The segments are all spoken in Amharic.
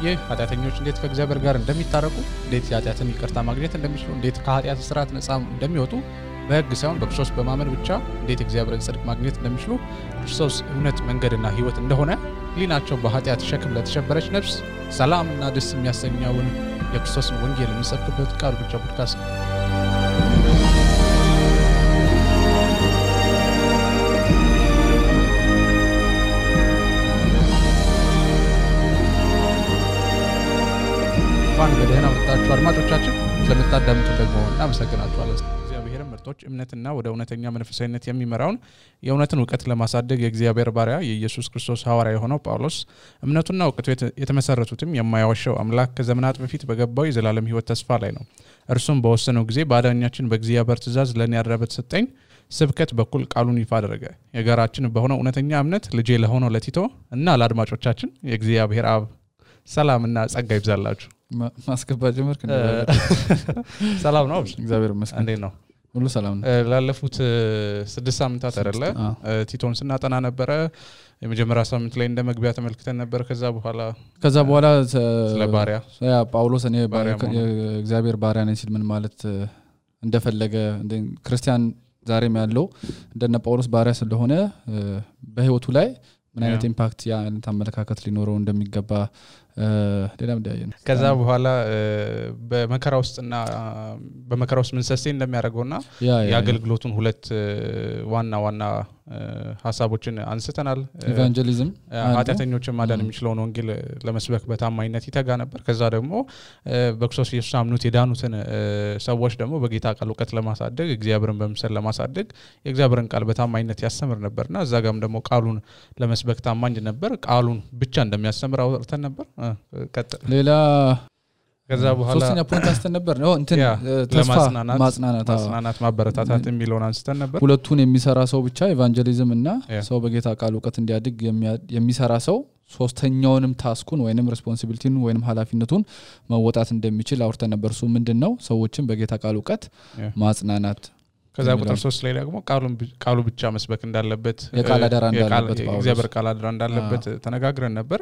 ይህ ኃጢአተኞች እንዴት ከእግዚአብሔር ጋር እንደሚታረቁ እንዴት ኃጢአትን ይቅርታ ማግኘት እንደሚችሉ እንዴት ከኃጢአት ስርዓት ነፃ እንደሚወጡ በሕግ ሳይሆን በክርስቶስ በማመን ብቻ እንዴት እግዚአብሔርን ጽድቅ ማግኘት እንደሚችሉ ክርስቶስ እውነት መንገድና ሕይወት እንደሆነ ሊናቸው በኃጢአት ሸክም ለተሸበረች ነፍስ ሰላምና ደስ የሚያሰኘውን የክርስቶስን ወንጌል የሚሰብክበት ቃል ብቻ ፖድካስት ነው። በደህና መጣችሁ አድማጮቻችን ስለምታዳምጡ ደግሞ እናመሰግናችኋለን። እግዚአብሔርን ምርጦች እምነትና ወደ እውነተኛ መንፈሳዊነት የሚመራውን የእውነትን ዕውቀት ለማሳደግ የእግዚአብሔር ባሪያ የኢየሱስ ክርስቶስ ሐዋርያ የሆነው ጳውሎስ እምነቱና ዕውቀቱ የተመሰረቱትም የማያዋሸው አምላክ ከዘመናት በፊት በገባው የዘላለም ሕይወት ተስፋ ላይ ነው። እርሱም በወሰነው ጊዜ በአዳኛችን በእግዚአብሔር ትእዛዝ ለኔ ያደረበት ሰጠኝ ስብከት በኩል ቃሉን ይፋ አደረገ። የጋራችን በሆነው እውነተኛ እምነት ልጄ ለሆነው ለቲቶ እና ለአድማጮቻችን የእግዚአብሔር አብ ሰላምና ጸጋ ይብዛላችሁ። ማስገባ ጀመርክ እንዴ? ሰላም ነው እግዚአብሔር ይመስገን። እንዴት ነው? ሁሉ ሰላም ነው። ላለፉት 6 ሳምንታት አይደለ ቲቶን ስናጠና ነበር። የመጀመሪያ ሳምንት ላይ እንደመግቢያ ተመልክተን ነበር። ከዛ በኋላ ስለ ባሪያ ጳውሎስ እኔ የእግዚአብሔር ባሪያ ነኝ ሲል ምን ማለት እንደፈለገ ክርስቲያን ዛሬም ያለው እንደነ ጳውሎስ ባሪያ ስለሆነ በህይወቱ ላይ ምን አይነት ኢምፓክት ያ ተመለካከት ሊኖረው እንደሚገባ ሌላም ዳየን። ከዛ በኋላ በመከራ ውስጥ ምን ሰስቴን እንደሚያደርገውና የአገልግሎቱን ሁለት ዋና ሐሳቦችን አንስተናል። ኢቫንጀሊዝም ኃጢአተኞችን ማዳን የሚችለውን ወንጌል ለመስበክ በታማኝነት ይተጋ ነበር። ከዛ ደግሞ በክርስቶስ ኢየሱስ አምኑት የዳኑትን ሰዎች ደግሞ በጌታ ቃል ዕውቀት ለማሳደግ እግዚአብሔርን በመምሰል ለማሳደግ የእግዚአብሔርን ቃል በታማኝነት ያስተምር ነበርና እዛ ጋርም ደግሞ ቃሉን ለመስበክ ታማኝ ነበር። ቃሉን ብቻ እንደሚያስተምር አውርተን ነበር። ሌላ ከዛ በኋላ ሶስተኛ ፖይንት አንስተን ነበር ነው እንትን ተስፋ ማጽናናት ማበረታታት የሚለውን አንስተን ነበር። ሁለቱን የሚሰራ ሰው ብቻ ኢቫንጀሊዝም እና ሰው በጌታ ቃል ዕውቀት እንዲያድግ የሚሰራ ሰው ሶስተኛውንም ታስኩን ወይንም ሪስፖንሲቢሊቲን ወይንም ኃላፊነቱን መወጣት እንደሚችል አውርተን ነበር። እሱ ምንድነው? ሰዎችን በጌታ ቃል ዕውቀት ማጽናናት። ከዛ ቁጥር 3 ላይ ደግሞ ቃሉ ብቻ መስበክ እንዳለበት የቃል አደራ እንዳለበት እግዚአብሔር ቃል አደራ እንዳለበት ተነጋግረን ነበር።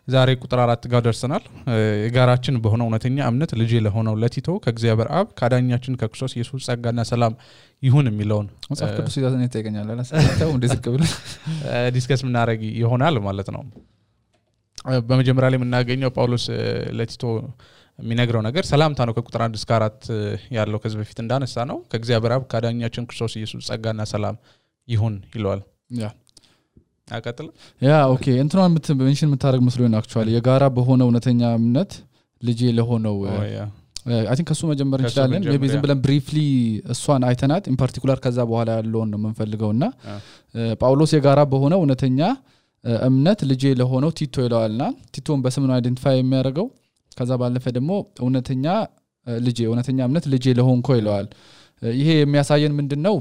ዛሬ ቁጥር 4 ጋር ደርሰናል። የጋራችን በሆነው እውነተኛ እምነት ልጄ ለሆነው ለቲቶ ከእግዚአብሔር አብ ከአዳኛችን ከክርስቶስ ኢየሱስ ጸጋና ሰላም ይሁን የሚለውን መጽሐፍ ቅዱስ ይዛት ነው ተገኛለ ለሰጣው እንደዚህ ከብለ ዲስከስ ምናረግ ይሆናል ማለት ነው። በመጀመሪያ ላይ የምናገኘው ጳውሎስ ለቲቶ የሚነግረው ነገር ሰላምታ ነው። ከቁጥር 1 እስከ 4 ያለው ከዚህ በፊት እንዳነሳ ነው ከእግዚአብሔር አብ ከአዳኛችን ክርስቶስ ኢየሱስ ጸጋና ሰላም ይሁን ይለዋል። አቀጥል ኦኬ እንትኗን ሜንሽን የምታደርግ መስሎኝ ነው አክቹአሊ የጋራ በሆነ እውነተኛ እምነት ልጄ ለሆነው አይ ቲንክ ከሱ መጀመር እንችላለን። ሜቢ ዝም ብለን ብሪፍሊ እሷን አይተናት ኢን ፓርቲኩላር ከዛ በኋላ ያለውን ነው የምንፈልገውና ጳውሎስ የጋራ በሆነ እውነተኛ እምነት ልጄ ለሆነው ቲቶ ይለዋልና ቲቶን በስም ነው አይደንቲፋይ የሚያደርገው። ከዛ ባለፈ ደግሞ እውነተኛ እምነት ልጄ ለሆንኮ ይለዋል። ይሄ የሚያሳየን ምንድነው?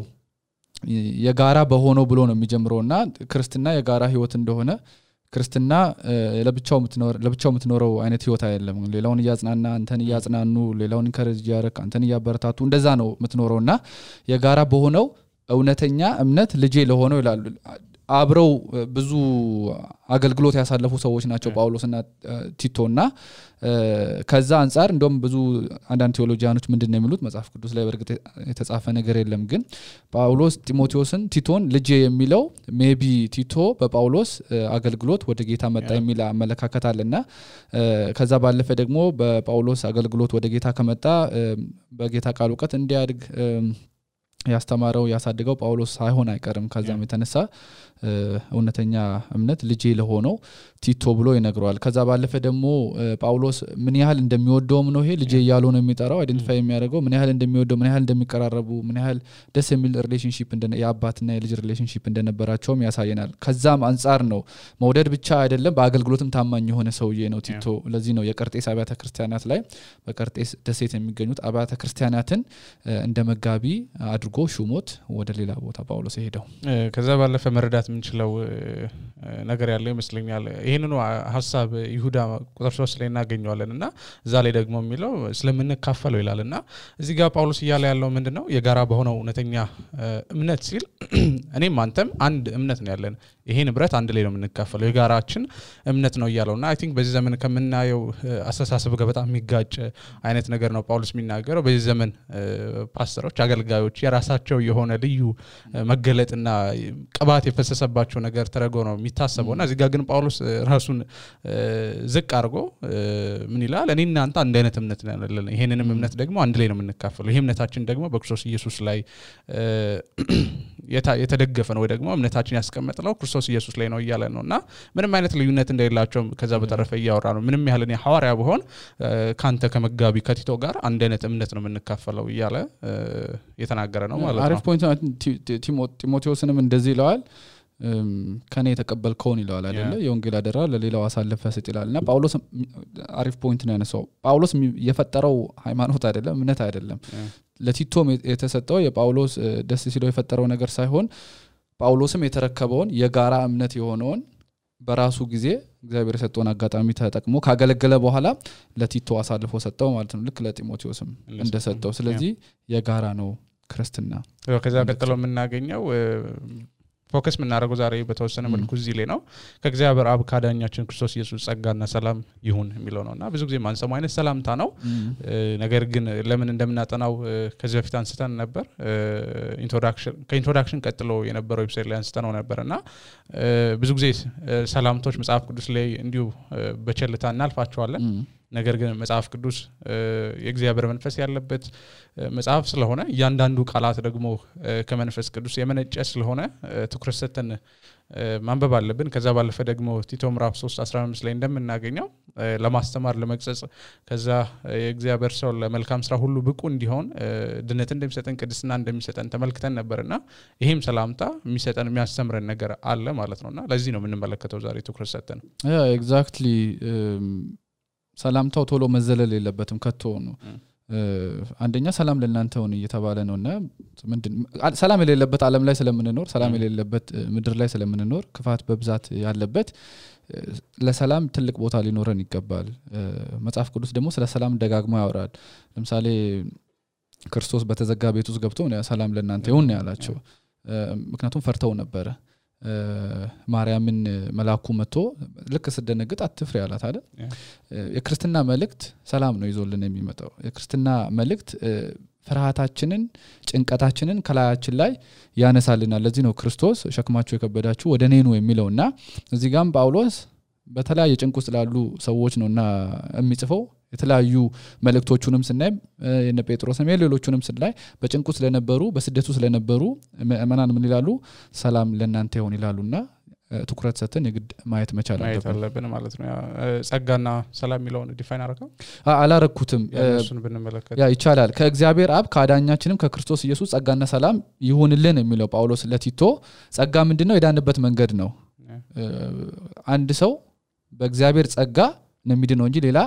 የጋራ በሆነው ብሎ ነው የሚጀምረውና ክርስትና የጋራ ህይወት እንደሆነ ክርስትና ለብቻው የምትኖረው አይነት ህይወት አይደለም። ሌላውን ያጽናና አንተን ያጽናኑ ሌላውን ኢንከሬጅ ያረክ አንተን ያበረታቱ እንደዛ ነው የምትኖረውና የጋራ በሆነው እውነተኛ እምነት ልጄ ለሆነው ይላል። አብረው ብዙ አገልግሎት ያሳለፉ ሰዎች ናቸው ጳውሎስና ቲቶና ከዛ አንፃር እንደውም ብዙ አንዳንድ ቴዎሎጂያኖች ምንድነው የሚሉት መጽሐፍ ቅዱስ ላይ በርግጥ የተጻፈ ነገር የለም ግን ጳውሎስ ቲቶን ልጄ የሚለው ሜቢ ቲቶ በጳውሎስ አገልግሎት ወደ ጌታ መጣ የሚል አመለካከት አለና ከዛ ባለፈ ደግሞ በጳውሎስ አገልግሎት ወደ ጌታ ከመጣ በጌታ ቃል ዕውቀት እንዲያድግ ያስተማረው ያሳደገው ጳውሎስ ሳይሆን አይቀርም። ከዛም የተነሳ እውነተኛ እምነት ልጄ ለሆነው ቲቶ ብሎ ይነግረዋል። ከዛ ባለፈ ደግሞ ጳውሎስ ምን ያህል እንደሚወደውም ነው ይሄ ልጄ ያለው ነው የሚጠራው አይደንቲፋይ የሚያደርገው ምን ያህል እንደሚወደው ምን ያህል እንደሚቀራረቡ ምን ያህል ደስ የሚል ሪሌሽንሺፕ የአባትና የልጅ ሪሌሽንሺፕ እንደነበራቸውም ያሳየናል። ከዛም አንፃር ነው መውደድ ብቻ አይደለም በአገልግሎትም ታማኝ የሆነ ሰውዬ ነው ቲቶ። ለዚህ ነው የቀርጤስ አብያተ ክርስቲያናት ላይ በቀርጤስ ደሴት የሚገኙት አብያተ ክርስቲያናትን እንደ መጋቢ አድርጎ ሹሞት ወደ ሌላ ቦታ ጳውሎስ ሄደው ከዛ ባለፈ መረዳት ምንችለው ነገር ያለው ይመስለኛል። ይሄንኑ ሐሳብ ይሁዳ ቁጥር 3 ላይ እናገኘዋለንና እዛ ላይ ደግሞ የሚለው ስለምንካፈለው ይላልና እዚህ ጋር ጳውሎስ ይያለ ያለው ምንድነው? የጋራ በሆነው እውነተኛ እምነት ሲል እኔም አንተም አንድ እምነት ነው ያለን ይሄ ንብረት አንድ ላይ ነው የምንካፈለው የጋራችን እምነት ነው ይያለውና አይ ቲንክ በዚህ ዘመን ከምናየው አስተሳሰብ ጋር በጣም የሚጋጭ አይነት ነገር ነው ጳውሎስ የሚናገረው በዚህ ዘመን ፓስተሮች አገልጋዮች የራሳቸው የሆነ ልዩ መገለጥና ቅባት የፈሰሰባቸው ነገር ተረጎ ነው የሚታሰበውና እዚህ ጋር ግን ጳውሎስ ራሱን ዝቅ አድርጎ ምን ይላል እኔና አንተ አንድ አይነት እምነት ነን ይሄንንም እምነት ደግሞ አንድ ላይ ነው የምንካፈለው ይሄ እምነታችን ደግሞ በክርስቶስ ኢየሱስ ላይ የተደገፈ ነው ወይ ደግሞ እምነታችን ያስቀመጠው ክርስቶስ ኢየሱስ ላይ ነው ይያለ ነውና ምንም አይነት ልዩነት እንደሌላቸው ከዛ በተረፈ ያወራ ነው ምንም ያህል እኔ ሐዋርያ በሆን ካንተ ከመጋቢ ከቲቶ ጋር አንድ አይነት እምነት ነው የምንካፈለው ይያለ የተናገረ ነው ማለት ነው አሪፍ ፖይንት ቲሞቴዎስንም እንደዚህ ይለዋል ከኔ የተቀበልከውን ይለዋል አይደለ የወንጌል አደራ ለሌላው አሳልፈ ሰጥ ይላልና ጳውሎስ አሪፍ ፖይንት ነው ያነሳው ጳውሎስ የፈጠረው ሃይማኖት አይደለም እምነት አይደለም ለቲቶም የተሰጠው የጳውሎስ ደስ ሲለው የፈጠረው ነገር ሳይሆን ጳውሎስም የተረከበውን የጋራ እምነት የሆነውን በራሱ ጊዜ እግዚአብሔር የሰጠውን አጋጣሚ ተጠቅሞ ካገለገለ በኋላ ለቲቶ አሳልፎ ሰጠው ማለት ነው ልክ ለጢሞቴዎስም እንደሰጠው ስለዚህ የጋራ ነው ክርስትና ከዛ ቀጥሎ የምናገኘው ፎከስ ምናረጋው ዛሬ በተወሰነ መልኩ እዚህ ላይ ነው ከእግዚአብሔር አብ ካዳኛችን ክርስቶስ ኢየሱስ ጸጋና ሰላም ይሁን የሚለው ነውና ብዙ ጊዜ ማንሰማው አይነት ሰላምታ ነው ነገር ግን ለምን እንደምናጠናው ከዚህ በፊት አንስተን ነበር ከኢንትሮዳክሽን ቀጥሎ የነበረው ዌብሳይት ላይ አንስተነው ነበርና ብዙ ጊዜ ሰላምቶች መጽሐፍ ቅዱስ ላይ እንዲሁ በቸልታ እናልፋቸዋለን ነገር ግን መጽሐፍ ቅዱስ የእግዚአብሔር መንፈስ ያለበት መጽሐፍ ስለሆነ ያንዳንዱ ቃላት ደግሞ ከመንፈስ ቅዱስ የመነጨ ስለሆነ ትኩረት ሰጥተን ማንበብ አለብን ከዛ ባለፈ ደግሞ ቲቶ ምዕራፍ 3:15 ላይ እንደምናገኘው ለማስተማር ለመግጸጽ ከዛ የእግዚአብሔር ሰው ለመልካም ስራ ሁሉ ብቁ እንዲሆን ድነት እንደሚሰጠን ቅድስና እንደሚሰጠን ተመልክተን ነበርና ይሄም ሰላምታ የሚሰጠን የሚያስተምረን ነገር አለ ማለት ነውና ለዚህ ነው የምንመለከተው ዛሬ ትኩረት ሰጥተን ኤግዛክትሊ ሰላምታው ቶሎ መዘለል የለበትም ከቶ ነው አንደኛ ሰላም ለእናንተ ሆነ እየተባለ ነውና ሰላም የሌለበት ዓለም ላይ ስለምንኖር ሰላም የሌለበት ምድር ላይ ስለምንኖር ክፋት በብዛት ያለበት ለሰላም ትልቅ ቦታ ሊኖረን ይገባል መጽሐፍ ቅዱስ ደግሞ ስለ ሰላም ደጋግሞ ያወራል ለምሳሌ ክርስቶስ በተዘጋ ቤት ውስጥ ገብቶ ሰላም ለእናንተ ይሁን ያላቸው ምክንያቱም ፈርተው ነበር ማርያምን መላኩ መጥቶ ልክ ስደነግጥ አትፍሪ ያላት አይደል የክርስትና መልእክት ሰላም ነው ይዞልን የሚመጣው የክርስትና መልእክት ፍርሃታችንን ጭንቀታችንን ከላያችን ላይ ያነሳልናል ለዚህ ነው ክርስቶስ ሸክማችሁ የከበዳችሁ ወደ እኔ ኑ የሚለውና እዚህ ጋርም ጳውሎስ በተለያየ ጭንቅ ውስጥ ላሉ ሰዎች ነውና የሚጽፈው የተለያዩ መልእክቶቹንም ስናይ የነ ጴጥሮስም የሌሎቹንም ስናይ በጭንቁ ስለነበሩ በስደቱ ስለነበሩ ማናን ምን ይላሉ ሰላም ለእናንተ ይሁን ይላሉና ትኩረት ሰጥተን የግድ ማየት መቻል አለብን ማለት ነው ጸጋና ሰላም የሚለውን ዲፋይን አደረገው አላረኩትም እሱን ብንመለከት ያ ይቻላል ከእግዚአብሔር አብ ካዳኛችንም ከክርስቶስ ኢየሱስ ጸጋና ሰላም ይሁንልን የሚለው ጳውሎስ ለቲቶ ጸጋ ምንድነው የዳንበት መንገድ ነው አንድ ሰው በእግዚአብሔር ጸጋ ነው የሚድነው እንጂ ሌላ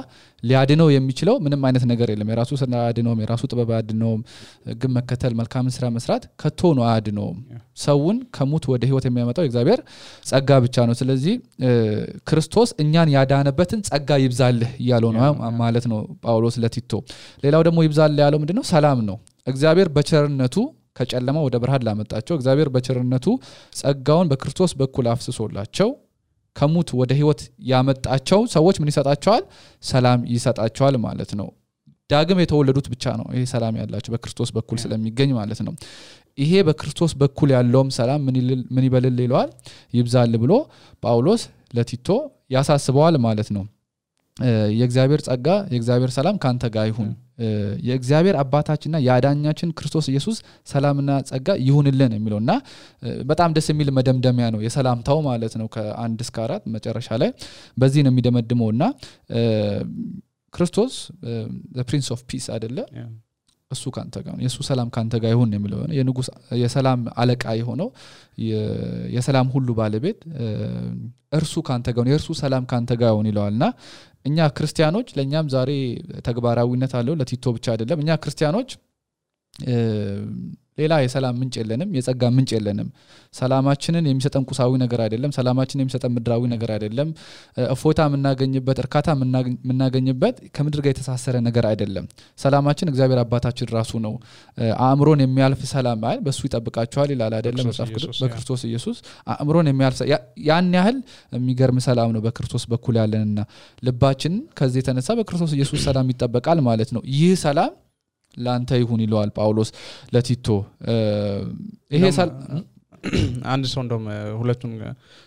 ሊያድነው የሚችለው ምንም አይነት ነገር የለም የራሱ ስራ አድነው የራሱ ጥበብ አድነው ግን መከተል መልካም ስራ መስራት ከቶ ነው አድነው ሰውን ከሞት ወደ ህይወት የሚያመጣው እግዚአብሔር ጸጋ ብቻ ነው ስለዚህ ክርስቶስ እኛን ያዳነበትን ጸጋ ይብዛልህ ያለው ነው ማለት ነው ጳውሎስ ለቲቶ ሌላው ደግሞ ይብዛልህ ያለው ምንድነው ሰላም ነው እግዚአብሔር በቸርነቱ ከጨለማ ወደ ብርሃን ላመጣቸው እግዚአብሔር በቸርነቱ ጸጋውን በክርስቶስ በኩል አፍስሶላቸው ከሙት ወደ ህይወት ያመጣቸው ሰዎች ምን ይሰጣቸዋል ሰላም ይሰጣቸዋል ማለት ነው ዳግም የተወለዱት ብቻ ነው ይሄ ሰላም ያላቸው በክርስቶስ በኩል ስለሚገኝ ማለት ነው ይሄ በክርስቶስ በኩል ያለውም ሰላም ምን ይበልል ይለዋል ይብዛል ብሎ ጳውሎስ ለቲቶ ያሳስበዋል ማለት ነው የእግዚአብሔር ጸጋ የእግዚአብሔር ሰላም ካንተ ጋር ይሁን የእግዚአብሔር አባታችንና ያዳኛችን ክርስቶስ ኢየሱስ ሰላምና ጸጋ ይሁንልን የሚለውና በጣም ደስ የሚል መደምደሚያ ነው የሰላምታው ማለት ነው ከ1 እስከ 4 መጨረሻ ላይ በዚህ ነው የሚደመድመውና ክርስቶስ the prince of peace አይደለ እሱ ካንተ ጋር ነው የሱ ሰላም ካንተ ጋር ይሁን የሚለው የንጉስ የሰላም አለቃ የሆነው የሰላም ሁሉ ባለቤት እርሱ ካንተ ጋር ነው የእርሱ ሰላም ካንተ ጋር ይሁን ይለዋልና እኛ ክርስቲያኖች ለኛም ዛሬ ተግባራዊነት አለው ለቲቶ ብቻ አይደለም እኛ ክርስቲያኖች ሌላ የሰላም ምንጭ የለንም የጸጋ ምንጭ የለንም ሰላማችንን የሚሰጠን ቁሳዊ ነገር አይደለም ሰላማችንን የሚሰጠን ምድራዊ ነገር አይደለም እፎታ የምናገኝበት እርካታ የምናገኝበት ከምድር ጋር የተሳሰረ ነገር አይደለም ሰላማችን እግዚአብሔር አባታችን ራሱ ነው አእምሮን የሚያልፍ ሰላም አይደል በሱ ይጠብቃችኋል ይላል አይደለም መጽሐፍ ቅዱስ በክርስቶስ ኢየሱስ አእምሮን የሚያልፍ ያን ያህል የሚገርም ሰላም ነው በክርስቶስ በኩል ያለንና ልባችን ከዚህ የተነሳ በክርስቶስ ኢየሱስ ሰላም ይጠበቃል ማለት ነው ይህ ሰላም ላንተ ይሁን ይለዋል ጳውሎስ ለቲቶ ይሄ አንድ ሰው እንደም ሁለቱን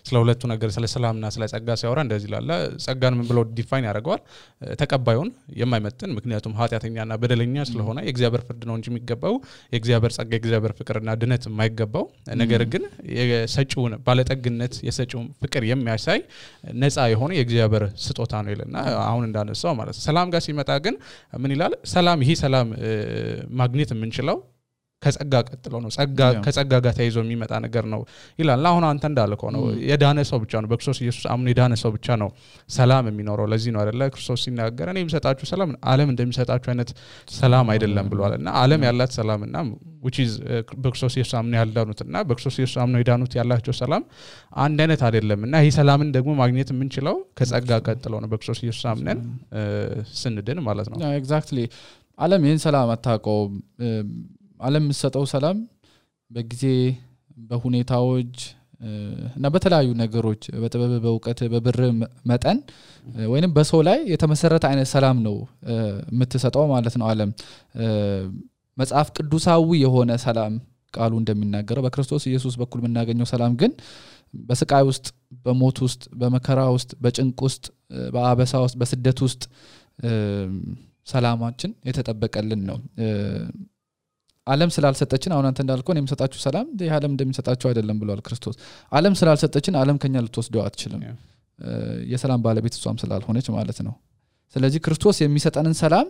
ስለ ሁለቱ ነገር ስለ ሰላምና ስለ ጸጋ ሲያወራ እንደዚህ ይላል ጸጋን ምን ብሎ ዲፋይን ያደርገዋል ተቀባዩን የማይመጥን ምክንያቱም ኃጢያተኛና በደለኛ ስለሆነ የእግዚአብሔር ፍርድ ነው እንጂ የሚገባው የእግዚአብሔር ጸጋ የእግዚአብሔር ፍቅርና ድነት የማይገባው ነገር ግን የሰጪውን ባለጠግነት የሰጪውን ፍቅር የሚያሳይ ነፃ የሆነ የእግዚአብሔር ስጦታ ነው ይልና አሁን እንዳነሳው ማለት ሰላም ጋር ሲመጣ ግን ምን ይላል ሰላም ይሄ ሰላም ማግኘት የምንችለው ከጸጋ ቀጥሎ ነው ጸጋ ከጸጋ ጋር ተይዞ የሚመጣ ነገር ነው ይላል አሁን አንተ እንዳልከው ነው የዳነ ሰው ብቻ ነው በክርስቶስ ኢየሱስ አምኖ የዳነ ሰው ብቻ ነው ሰላም የሚኖረው ለዚህ ነው አይደለ ክርስቶስ ሲናገር እኔ የምሰጣችሁ ሰላም ዓለም እንደሚሰጣችሁ አይነት ሰላም አይደለም ብሏልና ዓለም ያላት ሰላምና which is በክርስቶስ ኢየሱስ አምኖ ያልዳኑትና በክርስቶስ ኢየሱስ አምኖ የዳኑት ያላቸው ሰላም አንድ አይነት አይደለምና ይሄ ሰላምን ደግሞ ማግኘት የምንችለው ከጸጋ ቀጥሎ ነው በክርስቶስ ኢየሱስ አምነን ስንድን ማለት ነው ኤግዛክትሊ ዓለም ይሄን ሰላም አታውቀው ዓለም የምትሰጠው ሰላም በጊዜ በሁኔታዎች እና በተለያዩ ነገሮች በጥበብ በእውቀት በብር መጠን ወይንም በሰው ላይ የተመሰረተ አይነት ሰላም ነው የምትሰጠው ማለት ነው ዓለም መጽሐፍ ቅዱሳዊ የሆነ ሰላም ቃሉ እንደሚናገረው በክርስቶስ ኢየሱስ በኩል የምናገኘው ሰላም ግን በስቃይ ውስጥ በሞት ውስጥ በመከራ ውስጥ በጭንቅ ውስጥ በአበሳ ውስጥ በስደት ውስጥ ሰላማችን የተጠበቀልን ነው ዓለም ስላልሰጠችን አሁን አንተ እንዳልከው እኔም ሰጣችሁ ሰላም ዓለም እንደሚሰጣችሁ አይደለም ብሏል ክርስቶስ ዓለም ስላልሰጠችን ዓለም ከኛ ልትወስደው አትችልም የሰላም ባለቤት እሷም ስላልሆነች ማለት ነው ስለዚህ ክርስቶስ የሚሰጠንን ሰላም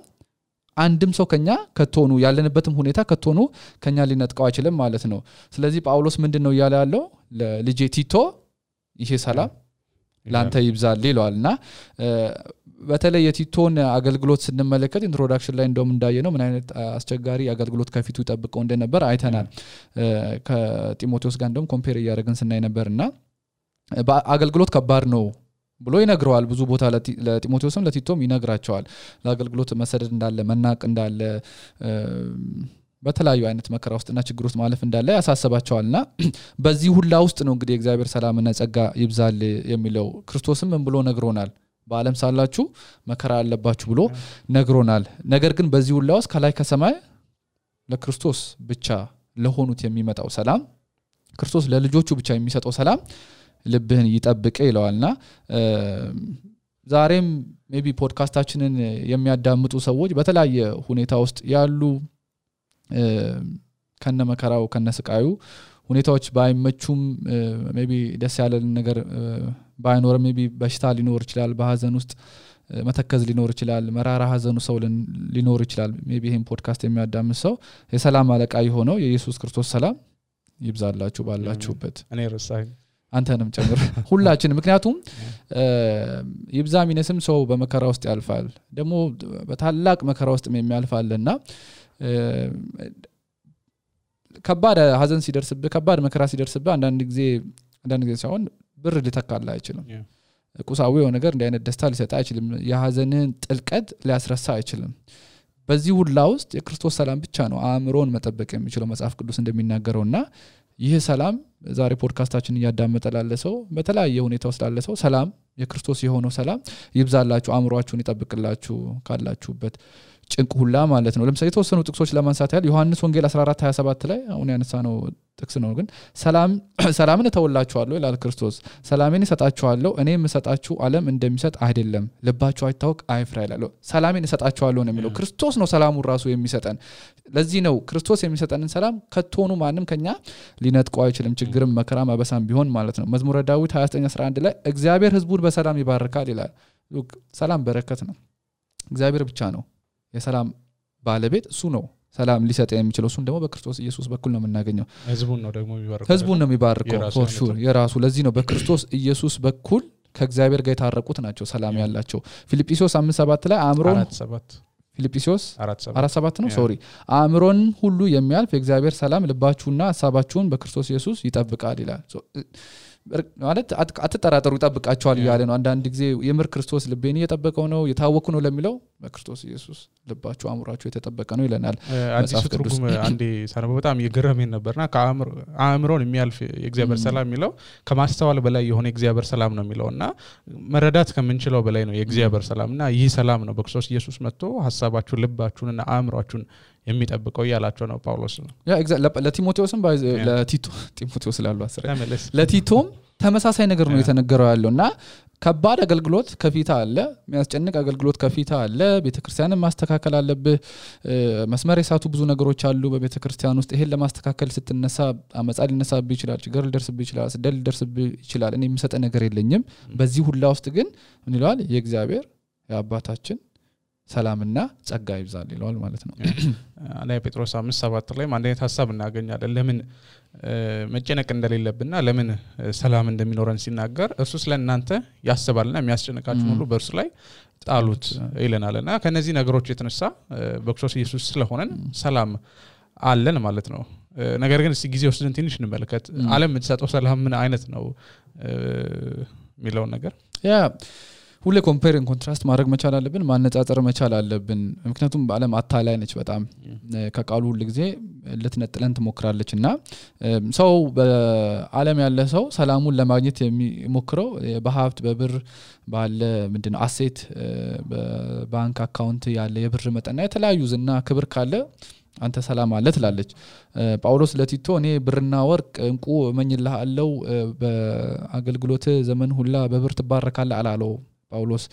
አንድም ሰው ከኛ ከቶኑ ያለንበትም ሁኔታ ከቶኑ ከኛ ሊነጥቀው አይችልም ማለት ነው ስለዚህ ጳውሎስ ምንድነው ያለ ያለው ለልጄ ቲቶ ይሄ ሰላም ላንተ ይብዛል ይላልና በተለይ የቲቶን አገልግሎት ስንመለከት ኢንትሮዳክሽን ላይ እንደውም እንዳየነው ምን አይነት አስቸጋሪ አገልግሎት ከፊቱ ይጠብቀው እንደነበር አይተናል ከጢሞቴዎስ ጋር እንደውም ኮምፔር ያደረግን ስናይ ነበርና በአገልግሎት ከባድ ነው ብሎ ይነግረዋል ብዙ ቦታ ለጢሞቴዎስም ለቲቶም ይነግራቸዋል ለአገልግሎት መሰደድ እንዳለ መናቅ እንዳለ በተለያዩ አይነት መከራ ውስጥና ችግር ውስጥ ማለፍ እንዳለ ያሳስባቸዋልና በዚህ ሁላ ውስጥ ነው እንግዲህ እግዚአብሔር ሰላምና ጸጋ ይብዛል የሚለው ክርስቶስም ምን ብሎ ነግሮናል በዓለም ሳላችሁ መከራ አለባችሁ ብሎ ነግሮናል ነገር ግን በዚህ ሁላ ውስጥ ከላይ ከሰማይ ለክርስቶስ ብቻ ለሆኑት የሚመጣው ሰላም ክርስቶስ ለልጆቹ ብቻ የሚሰጠው ሰላም ልብህን ይጠብቅ ይለዋልና ዛሬም ሜቢ ፖድካስታችንን የሚያዳምጡ ሰዎች በተለያየ ሁኔታ ውስጥ ያሉ ከነ መከራው ከነ ስቃዩ ሁኔታዎች ባይመቹም ሜቢ ደስ ያለን ነገር ባይኖር ሜቢ በሽታ ሊኖር ይችላል በሐዘን ውስጥ መተከዝ ሊኖር ይችላል መራራ ሐዘኑ ሰው ሊኖር ይችላል ሜቢ ይሄን ፖድካስት የሚያዳምጥ ሰው የሰላም አለቃ የሆነው የኢየሱስ ክርስቶስ ሰላም ይብዛላችሁ ባላችሁበት እኔ ረሳኝ አንተንም ጨምር ሁላችን ምክንያቱም ይብዛሚነስም ሰው በመከራ ውስጥ ያልፋል ደግሞ በታላቅ መከራ ውስጥ የሚያልፋልና ከባድ ሐዘን ሲደርስብህ ከባድ መከራ ሲደርስብህ አንዳንድ ጊዜ ሳይሆን ብር ሊተካላ አይችልም ቁሳዊ የሆነ ነገር እንደ አይነት ደስታ ሊሰጣ አይችልም የሐዘንን ጥልቀት ሊያስረሳ አይችልም በዚህ ሁላ ውስጥ የክርስቶስ ሰላም ብቻ ነው አእምሮን መጠበቅ የሚችለው መጽሐፍ ቅዱስ እንደሚናገረውና ይህ ሰላም ዛሬ ፖድካስታችን ያዳመጠ ላለ ሰው በተለያየ ሁኔታ ውስጥ ላለ ሰው ሰላም የክርስቶስ የሆነው ሰላም ይብዛላችሁ አእምሮአችሁን ይጠብቅላችሁ ካላችሁበት ጭንቅ ሁላ ማለት ነው ለምሳሌ የተወሰኑ ጥቅሶች ለማንሳት ያህል ዮሐንስ ወንጌል 14:27 ላይ አሁን ያነሳነው ጥቅስ ነው ግን ሰላምን ተወላችኋለሁ ይላል ክርስቶስ ሰላሜን እሰጣችኋለሁ እኔ የምሰጣችሁ ዓለም እንደሚሰጥ አይደለም ልባችሁ አይታወቅ አይፍራ ይላል ሰላሜን እሰጣችኋለሁ ነው የሚለው ክርስቶስ ነው ሰላሙን ራሱ የሚሰጠን ለዚህ ነው ክርስቶስ የሚሰጠንን ሰላም ከቶኑ ማንም ከኛ ሊነጥቀው አይችልም ችግርም መከራም አበሳም ቢሆን ማለት ነው መዝሙረ ዳዊት 29:11 ላይ እግዚአብሔር ሕዝቡን በሰላም ይባርካል ይላል ሰላም በረከት ነው እግዚአብሔር ብቻ ነው የሰላም ባለቤት እሱ ነው ሰላም ሊሰጥ የሚችለው እሱን ደግሞ በክርስቶስ ኢየሱስ በኩል ነው የምናገኘው ህዝቡን ነው የሚባርከው for sure የራሱ ለዚህ ነው በክርስቶስ ኢየሱስ በኩል ከእግዚአብሔር ጋር የታረቁት ናቸው ሰላም ያላቸው ፊልጵስዩስ 5:7 ላይ ፊልጵስዩስ 4:7 ነው ሶሪ አእምሮን ሁሉ የሚያልፍ የእግዚአብሔር ሰላም ልባችሁና ሐሳባችሁን በክርስቶስ ኢየሱስ ይጠብቃል ይላል ማለት አትጠራጠሩ ይጠብቃቸዋል ይያለ ነው አንዳንድ ጊዜ የምር ክርስቶስ ልቤን እየጠበቀው ነው የታወኩ ነው ለሚለው በክርስቶስ ኢየሱስ ልባችሁ አእምሮአችሁ የተጠበቀ ነው ይለናል አዲስ ትርጉም አንዴ ሳነበው በጣም የገረመኝ ነበርና ከአእምሮን የሚያልፍ የእግዚአብሔር ሰላም የሚለው ከማስተዋል በላይ የሆነ የእግዚአብሔር ሰላም ነው የሚለውና መረዳት ከምንችለው በላይ ነው የእግዚአብሔር ሰላምና ይህ ሰላም ነው በክርስቶስ ኢየሱስ መጥቶ ሐሳባችሁን ልባችሁንና አእምሮአችሁን የሚጠብቀው ያላቸው ነው ጳውሎስ ነው ያ ለቲሞቴዎስም ቲሞቴዎስ ላሉ አስረ ለቲቶም ተመሳሳይ ነገር ነው የተነገረው ያለውና ከባድ አገልግሎት ከፊታ አለ የሚያስጨንቅ አገልግሎት ከፊታ አለ ቤተክርስቲያንን ማስተካከል አለብህ መስመር የሳቱ ብዙ ነገሮች አሉ በቤተክርስቲያን ውስጥ ይሄን ለማስተካከል ስትነሳ አመጻ ሊነሳብህ ይችላል ችግር ሊደርስብህ ይችላል ስደል ሊደርስብህ ይችላል እኔ የምሰጠ ነገር የለኝም በዚህ ሁላ ውስጥ ግን ምን ይላል የእግዚአብሔር የአባታችን ሰላምና ጸጋ ይብዛል ይላል ማለት ነው አንደኛ ጴጥሮስ 5:7 ላይ አንደኛ ሐሳብ እናገኛለን ለምን መጨነቅ እንደሌለብንና ለምን ሰላም እንደሚኖረን ሲናገር እርሱ ስለእናንተ ያስባልና የሚያስጨንቃችሁ ሁሉ በእርሱ ላይ ጣሉት ይለናልና ከነዚህ ነገሮች የተነሳ በክርስቶስ ኢየሱስ ስለሆነን ሰላም አለን ማለት ነው ነገር ግን እስቲ ጊዜ ወስደን ትንሽ እንመልከት ዓለም የምትሰጠው ሰላም ምን አይነት ነው የሚለው ነገር ያ ሁሌ ኮምፔር ኤንድ ኮንትራስት ማድረግ መቻል አለብን ማነጻጸር መቻል አለብን ምክንያቱም ዓለም አታላይ ነች በጣም ከቃሉ ሁሉ ጊዜ ልትነጥለን ትሞክራለችና ሰው በዓለም ያለ ሰው ሰላሙን ለማግኘት የሚሞክረው በሀብት በብር ባለ ምንድነው አሴት በባንክ አካውንት ያለ የብር መጠንና የተለያዩ ዝና ክብር ካለ አንተ ሰላም አለ ትላለች ጳውሎስ ለቲቶ እኔ ብርና ወርቅ እንቁ እመኝልሃለሁ በአገልግሎት ዘመን ሁላ በብር ትባረካለህ አላለው ጳውሎስ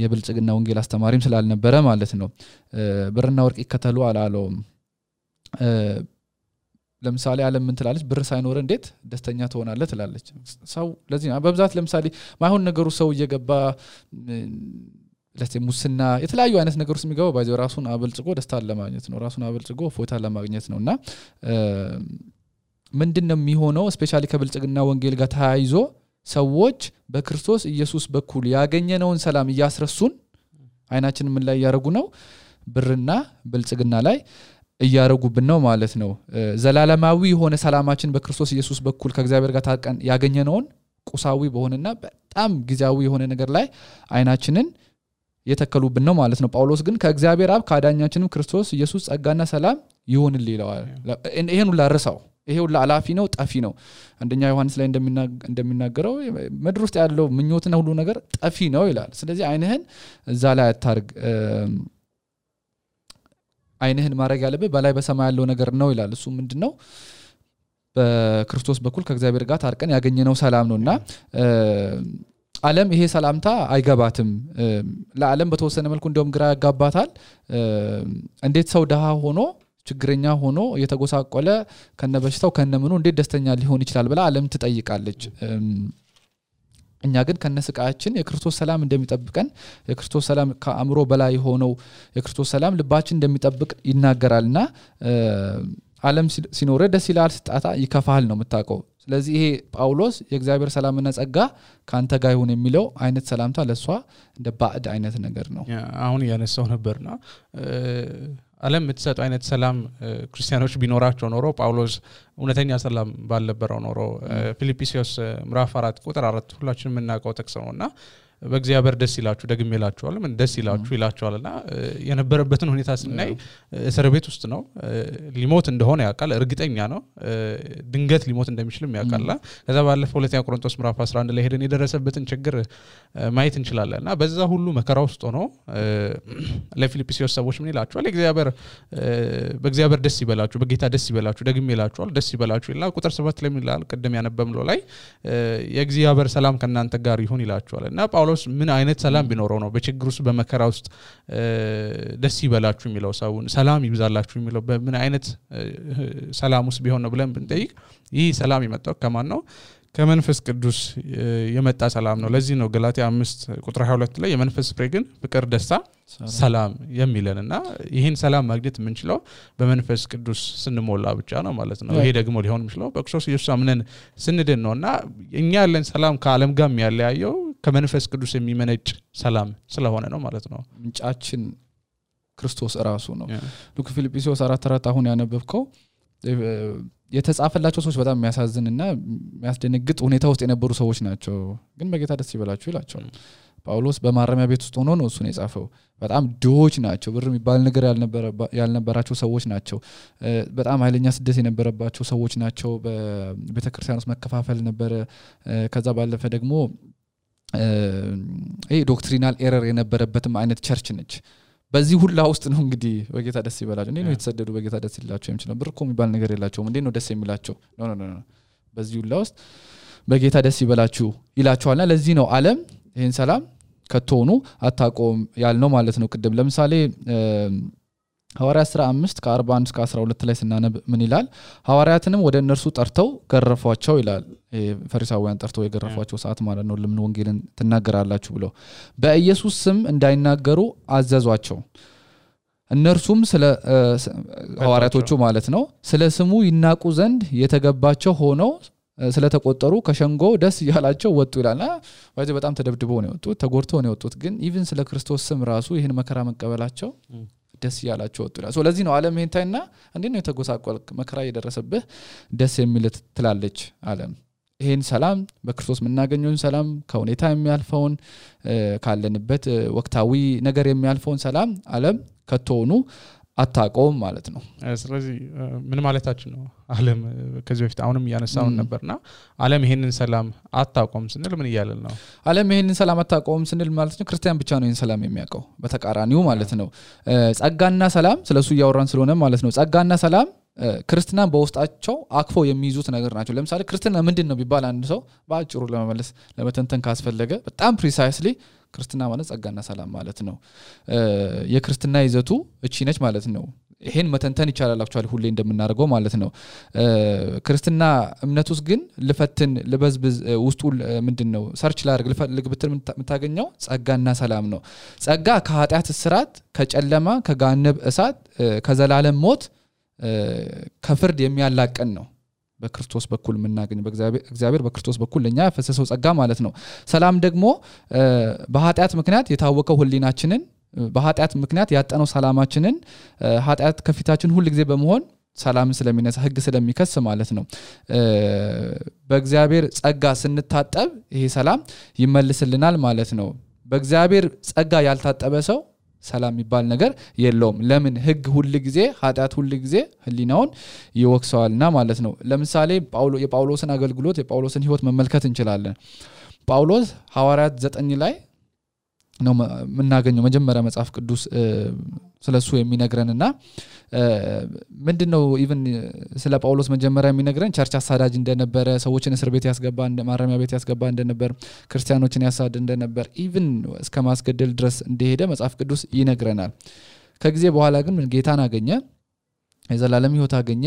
የብልጽግና ወንጌል አስተማሪም ስላልነበረ ማለት ነው ብርና ወርቅ ይከተሉ አላለው ለምሳሌ ዓለም ምን ትላለች ብር ሳይኖር እንዴት ደስተኛ ትሆናለህ ትላለች ሰው ለዚህ በብዛት ለምሳሌ ማይሆን ነገሩ ሰው እየገባ ሙስና የተለያዩ አይነት ነገሮች የሚገባው ባይዘው ራሱን አበልጽጎ ደስታ ለማግኘት ነው ራሱን አበልጽጎ ፎታ ለማግኘት ነውና ምንድነው የሚሆነው ስፔሻሊ ከብልጽግና ወንጌል ጋር ተያይዞ ሰዎች በክርስቶስ ኢየሱስ በኩል ያገኘነውን ሰላም ያስረሱን አይናችን ምን ላይ ያረጉ ነው ብርና ብልጽግና ላይ እያረጉብን ነው ማለት ነው ዘላለማዊ የሆነ ሰላማችን በክርስቶስ ኢየሱስ በኩል ከእግዚአብሔር ጋር ታቀን ያገኘነውን ቁሳዊ በሆነና በጣም ጊዜያዊ የሆነ ነገር ላይ አይናችንን የተከሉብን ነው ማለት ነው ጳውሎስ ግን ከእግዚአብሔር አብ ካዳኛችንም ክርስቶስ ኢየሱስ ጸጋና ሰላም ይሁንልህ ይላል ይሄን ሁሉ አረሳው ይሄ ሁሉ አላፊ ነው ጠፊ ነው አንደኛ ዮሐንስ ላይ እንደሚናገረው ምድር ውስጥ ያለው ምኞትና ሁሉ ነገር ጠፊ ነው ይላል ስለዚህ አይንህን እዛ ላይ አታርግ አይንህን ማረግ ያለበት በላይ በሰማይ ያለው ነገር ነው ይላል እሱ ምንድነው በክርስቶስ በኩል ከእግዚአብሔር ጋር ታርቀን ያገኘነው ሰላም ነውና ዓለም ይሄ ሰላምታ አይገባትም ለዓለም በተወሰነ መልኩ እንደውም ግራ ያጋባታል እንዴት ሰው ደሃ ሆኖ ችግረኛ ሆኖ የተጎሳቆለ ከነበሽታው ከነምኑ እንዴት ደስተኛ ሊሆን ይችላል ብላ ዓለም ትጠይቃለች እኛ ግን ከነስቃያችን የክርስቶስ ሰላም እንደሚጠብቀን የክርስቶስ ሰላም ከአእምሮ በላይ ሆነው የክርስቶስ ሰላም ልባችን እንደሚጠብቅ ይናገራልና ዓለም ሲኖር ደስ ይላል ስጣታ ይከፋል ነው የምታውቀው ስለዚህ ይሄ ጳውሎስ የእግዚአብሔር ሰላምና ጸጋ ካንተ ጋር ይሁን የሚለው አይነት ሰላምታ ለሷ እንደ ባዕድ አይነት ነገር ነው አሁን ያነሳው ነበርና ዓለም የምትሰጠው አይነት ሰላም ክርስቲያኖች ቢኖራቸው ኖሮ ጳውሎስ እውነተኛ ሰላም ባልነበረው ኖሮ ፊልጵስዩስ ምዕራፍ 4:4 ሁላችንም እናውቀው ጥቅስ ነውና በእግዚአብሔር ደስ ይላችሁ ደግሜላችኋል ምን ደስ ይላችሁ ይላችኋልና የነበረበትን ሁኔታ ስናይ እስር ቤት ውስጥ ነው ሊሞት እንደሆነ ያውቃል እርግጠኛ ነው ድንገት ሊሞት እንደሚችልም ያውቃልና ከዛ ባለፈው ሁለተኛ ቆሮንቶስ ምዕራፍ 11 ላይ ሄደን የደረሰበትን ችግር ማየት እንችላለንና በዛ ሁሉ መከራ ውስጥ ሆኖ ለፊልጵስዩስ ሰዎች ምን ይላችኋል በእግዚአብሔር ደስ ይበላችሁ በጌታ ደስ ይበላችሁ ደግሜላችኋል ደስ ይበላችሁ ይላል ቁጥር 7 ላይ ምን ይላል ቀደም ያነበብነው ላይ የእግዚአብሔር ሰላም ከናንተ ጋር ይሁን ይላችኋልና ጳውሎስ ምን አይነት ሰላም ቢኖረው ነው በችግር ውስጥ በመከራ ውስጥ ደስ ይበላችሁ የሚለው ሰውን ሰላም ይብዛላችሁ የሚለው በምን አይነት ሰላም ውስጥ ቢሆን ነው ብለን ብንጠይቅ ይህ ሰላም የመጣው ከማን ነው ከመንፈስ ቅዱስ የመጣ ሰላም ነው ለዚህ ነው ገላትያ 5:22 ላይ የመንፈስ ፍሬ ግን ፍቅር ደስታ ሰላም የሚለንና ይሄን ሰላም ማግኘት የምንችለው በመንፈስ ቅዱስ ስንሞላ ብቻ ነው ማለት ነው ይሄ ደግሞ ሊሆን የሚችለው በክርስቶስ ኢየሱስ አምነን ስንድን ነውና እኛ ያለን ሰላም ከዓለም ጋር የሚያለያየው ከመንፈስ ቅዱስ የሚመነጭ ሰላም ስለሆነ ነው ማለት ነው ምንጫችን ክርስቶስ ራሱ ነው ሉክ ፊልጵስዩስ 4:4 አሁን ያነበብከው የተጻፈላቸው ሰዎች በጣም የሚያሳዝንና የሚያስደነግጥ ሁኔታ ውስጥ የነበሩ ሰዎች ናቸው ግን በጌታ ደስ ይበላችሁ ይላቸዋል ጳውሎስ በማረሚያ ቤት ውስጥ ሆኖ ነው እሱን የጻፈው በጣም ድሆች ናቸው ብር የሚባል ነገር ያልነበራቸው ሰዎች ናቸው በጣም ኃይለኛ ስደት የነበረባቸው ሰዎች ናቸው በቤተክርስቲያን ውስጥ መከፋፈል ነበር ከዛ ባለፈ ደግሞ ዶክትሪናል ኤረር የነበረበትም አይነት ቸርች ነች በዚህ ሁላ ውስጥ ነው እንግዲህ በጌታ ደስ ይበላችሁ እንዴ ነው የተሰደዱ በጌታ ደስ ይላቸው የሚችለው ብር እኮ የሚባል ነገር የላቸውም እንዴ ነው ደስ የሚላቸው ኖ በዚህ ሁላ ውስጥ በጌታ ደስ ይበላችሁ ይላቸዋልና ለዚህ ነው ዓለም ይሄን ሰላም ከተሆኑ አታቆም ያልነው ማለት ነው ቅድም ለምሳሌ ሐዋርያት 15 ከ41 እስከ 12 ላይ ስናነብ ምን ይላል ሐዋርያትንም ወደ እነርሱ ጠርተው ገረፏቸው ይላል ፈሪሳውያን ጠርተው የገረፏቸው ሰዓት ማለት ነው ለምን ወንጌልን ትናገራላችሁ ብለው በኢየሱስ ስም እንዳይናገሩ አዘዟቸው እነርሱም ስለ ሐዋርያቶቹ ማለት ነው ስለ ስሙ ይናቁ ዘንድ የተገባቸው ሆነው ስለተቆጠሩ ከሸንጎ ደስ ይያላቸው ወጡ ይላልና ወይስ በጣም ተደብድበው ነው የወጡት ተጎርተው ነው የወጡት ግን ኢቭን ስለ ክርስቶስ ስም ራሱ ይሄን መከራ መቀበላቸው ደስ ይያላቸው ወጡ ይላል ስለዚህ ነው ዓለም ይሄንታይና እንዴ ነው የተጎሳቆልክ መከራ እየደረሰብህ ደስ የሚል ትላለች ዓለም ይሄን ሰላም በክርስቶስ ምናገኘውን ሰላም ከሁኔታ የሚያልፈውን ካለንበት ወቅታዊ ነገር የሚያልፈውን ሰላም ዓለም ከተሆኑ አታቆም ማለት ነው ስለዚህ ምን ማለታችን ነው ዓለም ከዚህ በፊት አሁንም ያነሳውን ነበርና ዓለም ይሄንን ሰላም አታቆም ስንል ምን ይያላል ነው ዓለም ይሄንን ሰላም አታቆም ስንል ማለት ነው ክርስቲያን ብቻ ነው ይሄን ሰላም የሚያቀው በተቃራኒው ማለት ነው ጸጋና ሰላም ስለሱ ያወራን ስለሆነ ማለት ነው ጸጋና ሰላም ክርስቲያናን በውስጣቸው አክፈው የሚይዙት ነገር ናቸው ለምሳሌ ክርስቲያና ምንድነው ቢባል አንድ ሰው ባጭሩ ለመመለስ ለመተንተን ካስፈለገ በጣም ፕሪሳይስሊ ክርስቲያና ማለት ጸጋና ሰላም ማለት ነው የክርስቲያና ይዘቱ እቺ ነች ማለት ነው ይሄን መተንተን ይቻላል አክቹአሊ ሁሌ እንደምናደርገው ማለት ነው ክርስቲያና እምነቱስ ግን ልፈትን ልበዝብዝ ውስጡ ምንድነው ሰርች ላድርግ ልፈልግ ብትል የምታገኘው ጸጋና ሰላም ነው ጸጋ ከኃጢአት እስራት ከጨለማ ከጋነብ እሳት ከዘላለም ሞት ከፍርድ የሚያላቀን ነው በክርስቶስ በኩል ምናገኝ በእግዚአብሔር በክርስቶስ በኩል ለኛ ፈሰሰው ጸጋ ማለት ነው ሰላም ደግሞ በኃጢአት ምክንያት የታወቀው ሁሊናችንን በኃጢአት ምክንያት ያጠነው ሰላማችንን ኃጢአት ከፊታችን ሁሉ ጊዜ በመሆን ሰላም ስለሚነሳ ህግ ስለሚከስ ማለት ነው በእግዚአብሔር ጸጋ ስንታጠብ ይሄ ሰላም ይመልስልናል ማለት ነው በእግዚአብሔር ጸጋ ያልታጠበ ሰው ሰላም ይባል ነገር የለውም ለምን ህግ ሁሉ ጊዜ ኃጢአት ሁሉ ጊዜ ህሊናውን ይወክሰዋልና ማለት ነው ለምሳሌ የጳውሎስን አገልግሎት የጳውሎስን ህይወት መመልከት እንችላለን ጳውሎስ ሐዋርያት 9 ላይ ነው ምናገኘው መጀመሪያ መጽሐፍ ቅዱስ ስለሱ የሚነግረንና ምንድነው ኢቭን ስለ ጳውሎስ መጀመሪያ የሚነግረን ቸርች አሳዳጅ እንደነበረ ሰዎችን እስር ቤት ያስገባ ማረሚያ ቤት ያስገባ እንደነበር ክርስቲያኖችን ያሳድ እንደነበር ኢቭን እስከ ማስገደል ድረስ እንደሄደ መጽሐፍ ቅዱስ ይነግረናል ከጊዜ በኋላ ግን ጌታን አገኘ የዘላለም ህይወት አገኘ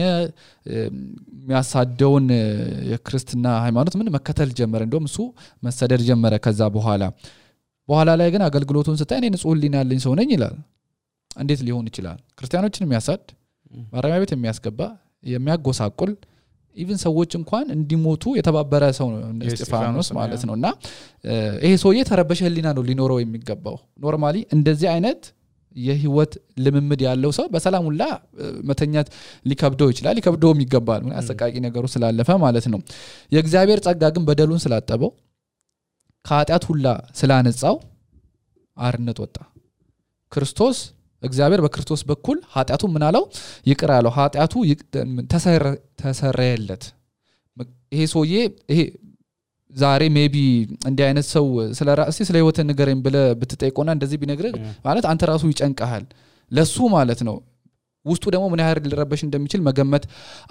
የሚያሳደውን የክርስቲና ሃይማኖት ምን መከተል ጀመረ እንደውም እሱ መሰደድ ጀመረ ከዛ በኋላ ላይ ግን አገልግሎቱን ስታይ እኔ ንጹህ ህሊና ያለኝ ሰው ነኝ ይላል እንዴት ሊሆን ይችላል ክርስቲያኖችን የሚያሳድ ማረሚያ ቤት የሚያስገባ የሚያጎሳቁል ኢቭን ሰዎች እንኳን እንዲሞቱ የተባበረ ሰው ነው እስጢፋኖስ ማለት ነውና ይሄ ሰውዬ ተረበሸ ህሊና ነው ሊኖረው የሚገባው ኖርማሊ እንደዚህ አይነት የህይወት ልምምድ ያለው ሰው በሰላም ሁላ መተኛት ሊከብደው ይችላል ሊከብደውም ይገባል ምን አሰቃቂ ነገሩ ስላለፈ ማለት ነው የእግዚአብሔር ጸጋ ግን በደሉን ስላጠበው ከኃጢአት ሁላ ስላነጻው አርነት ወጣ ክርስቶስ እግዚአብሔር በክርስቶስ በኩል ኃጢአቱ ምን አለው ይቅር አለው ኃጢአቱ ተሰረየለት ይሄ ሰውዬ ይሄ ዛሬ ሜቢ እንዲህ አይነት ሰው ስለራስህ ስለ ህይወት ንገረኝ ብለ ብትጠይቆና እንደዚህ ቢነግር ማለት አንተ ራሱ ይጨንቀሃል ለሱ ማለት ነው ውስጡ ደግሞ ምን ያህል ሊረበሽ እንደሚችል መገመት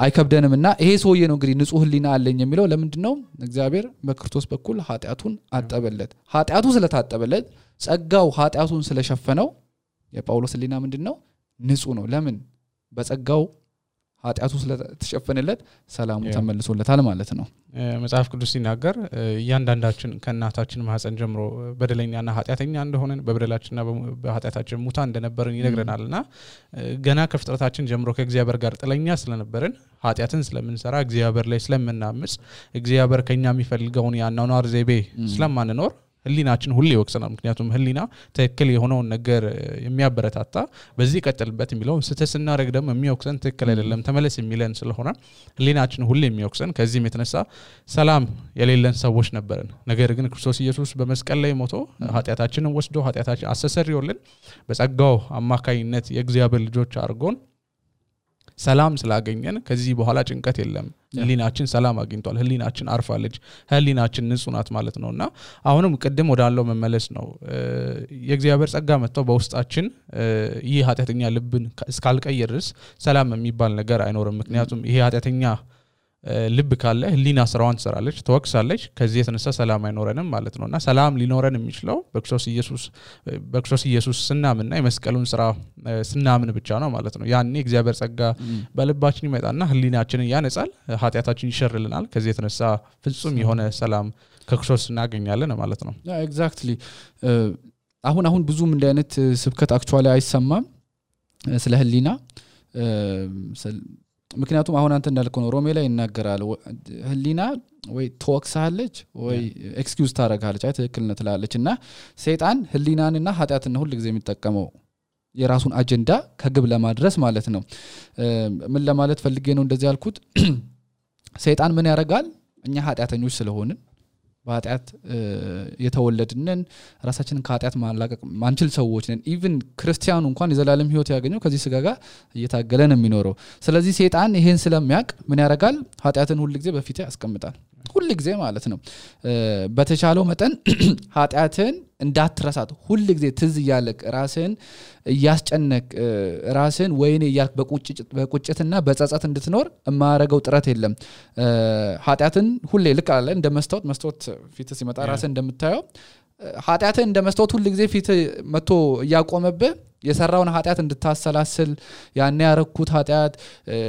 አይከብደንምና ይሄ ሰውዬ ነው እንግዲህ ንጹህ ህሊና አለኝ የሚለው ለምንድነው እግዚአብሔር በክርስቶስ በኩል ኃጢአቱን አጠበለት ኃጢአቱ ስለታጠበለት ጸጋው ኃጢአቱን ስለሸፈነው የጳውሎስ ህሊና ምንድነው ንጹህ ነው ለምን በጸጋው ኃጢአቱ ስለተሸፈነለት ሰላሙ ተመልሶለታል ማለት ነው መጽሐፍ ቅዱስ ሲናገር ያንዳንዳችን ከናታችን ማህፀን ጀምሮ በደለኛና ኃጢአተኛ እንደሆነን በበደላችንና በኃጢአታችን ሙታን እንደነበርን ይነግረናልና ገና ከፍጥረታችን ጀምሮ ከእግዚአብሔር ጋር ጥለኛ ስለነበርን ኃጢአትን ስለምንሰራ እግዚአብሔር ላይ ስለምናምጽ እግዚአብሔር ከኛ የሚፈልገውን ያናኗር ዘይቤ ስለማንኖር ህሊናችን ሁሌ ይወቅሰናል ምክንያቱም ህሊና ትክክል የሆነውን ነገር የሚያበረታታ በዚህ ቀጥልበት የሚለው ስተስና ረግ ደግሞ የሚወቅሰን ትክክል አይደለም ተመለስ የሚለን ስለሆነ ህሊናችን ሁሌ የሚወቅሰን ከዚህም የተነሳ ሰላም የሌለን ሰዎች ነበርን ነገር ግን ክርስቶስ ኢየሱስ በመስቀል ላይ ሞቶ ኃጢያታችንን ወስዶ ኃጢያታችን አስተሰርዮልን በጸጋው አማካይነት የእግዚአብሔር ልጆች አድርጎን ሰላም ስላገኘን ከዚህ በኋላ ጭንቀት የለም ህሊናችን ሰላም አግኝቷል ህሊናችን አርፋለች ህሊናችን ንጹህ ናት ማለት ነውና አሁንም ቀደም ወዳለው መመለስ ነው የእግዚአብሔር ጸጋ መጥተው በውስጣችን ይህ ኃጢያተኛ ልብን እስካልቀየርስ ሰላም የሚባል ነገር አይኖርም ምክንያቱም ይሄ ኃጢያተኛ ልብ ካለ ህሊና ስራዋን ትሰራለች ተወክሳለች ከዚህ የተነሳ ሰላም አይኖረንም ማለት ነውና ሰላም ሊኖረን የሚችለው በክርስቶስ ኢየሱስ ስናምንና የመስቀሉን ስራ ስናምን ብቻ ነው ማለት ነው ያኔ እግዚአብሔር ጸጋ በልባችን ይመጣና ህሊናችንን ያነጻል ኃጢያታችን ይሸርልናል ከዚህ የተነሳ ፍጹም የሆነ ሰላም ከክርስቶስ እናገኛለን ማለት ነው ኤግዛክትሊ አሁን ብዙም እንደ አይነት ስብከት አክቹአሊ አይሰማም ስለ ህሊና ምክንያቱም አሁን አንተ እንዳልከው ነው ሮሜ ላይ ይናገራል ህሊና ወይ ተወክሳለች ወይ ኤክስኪውዝ ታረጋለች አይ ትክክልነት ትላለችና ሰይጣን ህሊናንና ኃጢያትን ሁሉ ጊዜ የሚጠቀመው የራሱን አጀንዳ ከግብ ለማድረስ ማለት ነው ምን ለማለት ፈልጌ ነው እንደዚህ ያልኩት ሰይጣን ምን ያረጋል እኛ ኃጢያተኞች ስለሆንን በኃጢያት የተወለድነን ራሳችንን ከኃጢያት ማላቀቅ ማንችል ሰዎች ነን ኢቭን ክርስቲያኑ እንኳን የዘላለም ህይወት ያገኘው ከዚህ ስጋ ጋር እየታገለ ነው የሚኖረው ስለዚህ ሰይጣን ይሄን ስለሚያቅ ምን ያረጋል ኃጢያትን ሁሉ ጊዜ በፊት ያስቀምጣል ሁሉ ጊዜ ማለት ነው በተቻለው መጠን ኃጢያትን እንዳትረሳት ሁሉ ጊዜ ትዝ ያለክ ራስን ያስጨነቅ ራስን ወይኔ ያልክ በቁጭትና በጸጸት እንድትኖር ማረጋው ጥረት የለም ኃጢያትን ሁሌ ልክ አለ እንደ መስታወት ፊት ሲመጣ ራስን እንደምታየው ኃጢያትን እንደ መስታወት ሁሉ ጊዜ ፊት መጥቶ ያቆመብህ የሰራውን ኃጢያት እንድታሰላስል ያኔ ያረኩት ኃጢያት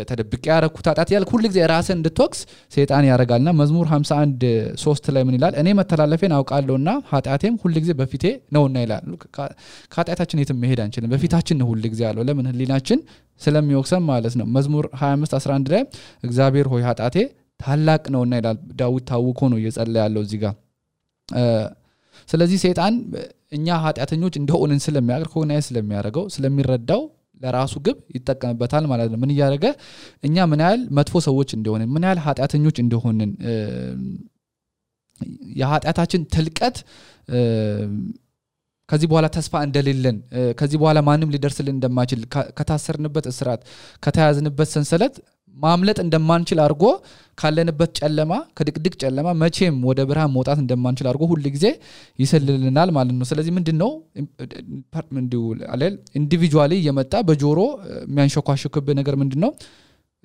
ተደብቄ ያረኩት ኃጢያት ያልክ ሁሉ ጊዜ ራስን እንድትወቅስ ሰይጣን ያረጋልና መዝሙር 51:3 ላይ ምን ይላል እኔ መተላለፌን አውቃለሁና ኃጢያቴም ሁሉ ጊዜ በፊቴ ነውና ይላል ከኃጢያታችን የትም መሄድ አንችልም በፊታችን ነው ሁሉ ጊዜ ያለው ለምን ህሊናችን ስለሚወቅሰን ማለት ነው መዝሙር 25:11 ላይ እግዚአብሔር ሆይ ኃጢያቴ ታላቅ ነውና ይላል ዳዊት ታውቆ ነው እየጸለየ ያለው እዚህ ጋር ስለዚህ ሰይጣን እኛ ኃጢያተኞች እንደሆነን ስለሚያርኮናይዝ ስለሚያረጋው ስለሚረዳው ለራሱ ግብ ይተቀምበታል ማለት ነው ምን ያረጋ እኛ ምን ያህል መጥፎ ሰዎች እንደሆነን ምን ያህል ኃጢያተኞች እንደሆነን የኃጢያታችን ትልቀት ከዚህ በኋላ ተስፋ እንደሌለን ከዚህ በኋላ ማንንም ሊደርስልን እንደማይችል ከታሰርንበት እስራት ከተያዝንበት ሰንሰለት ማምለጥ እንደማንችል አርጎ ካለንበት ጨለማ ከድቅድቅ ጨለማ መቼም ወደ ብርሃን መውጣት እንደማንችል አርጎ ሁሉ ጊዜ ይሰልልልናል ማለት ነው ስለዚህ ምንድነው ኢንዲቪጁዋሊ የመጣ በጆሮ የሚያንሸኳሽክብ ነገር ምንድነው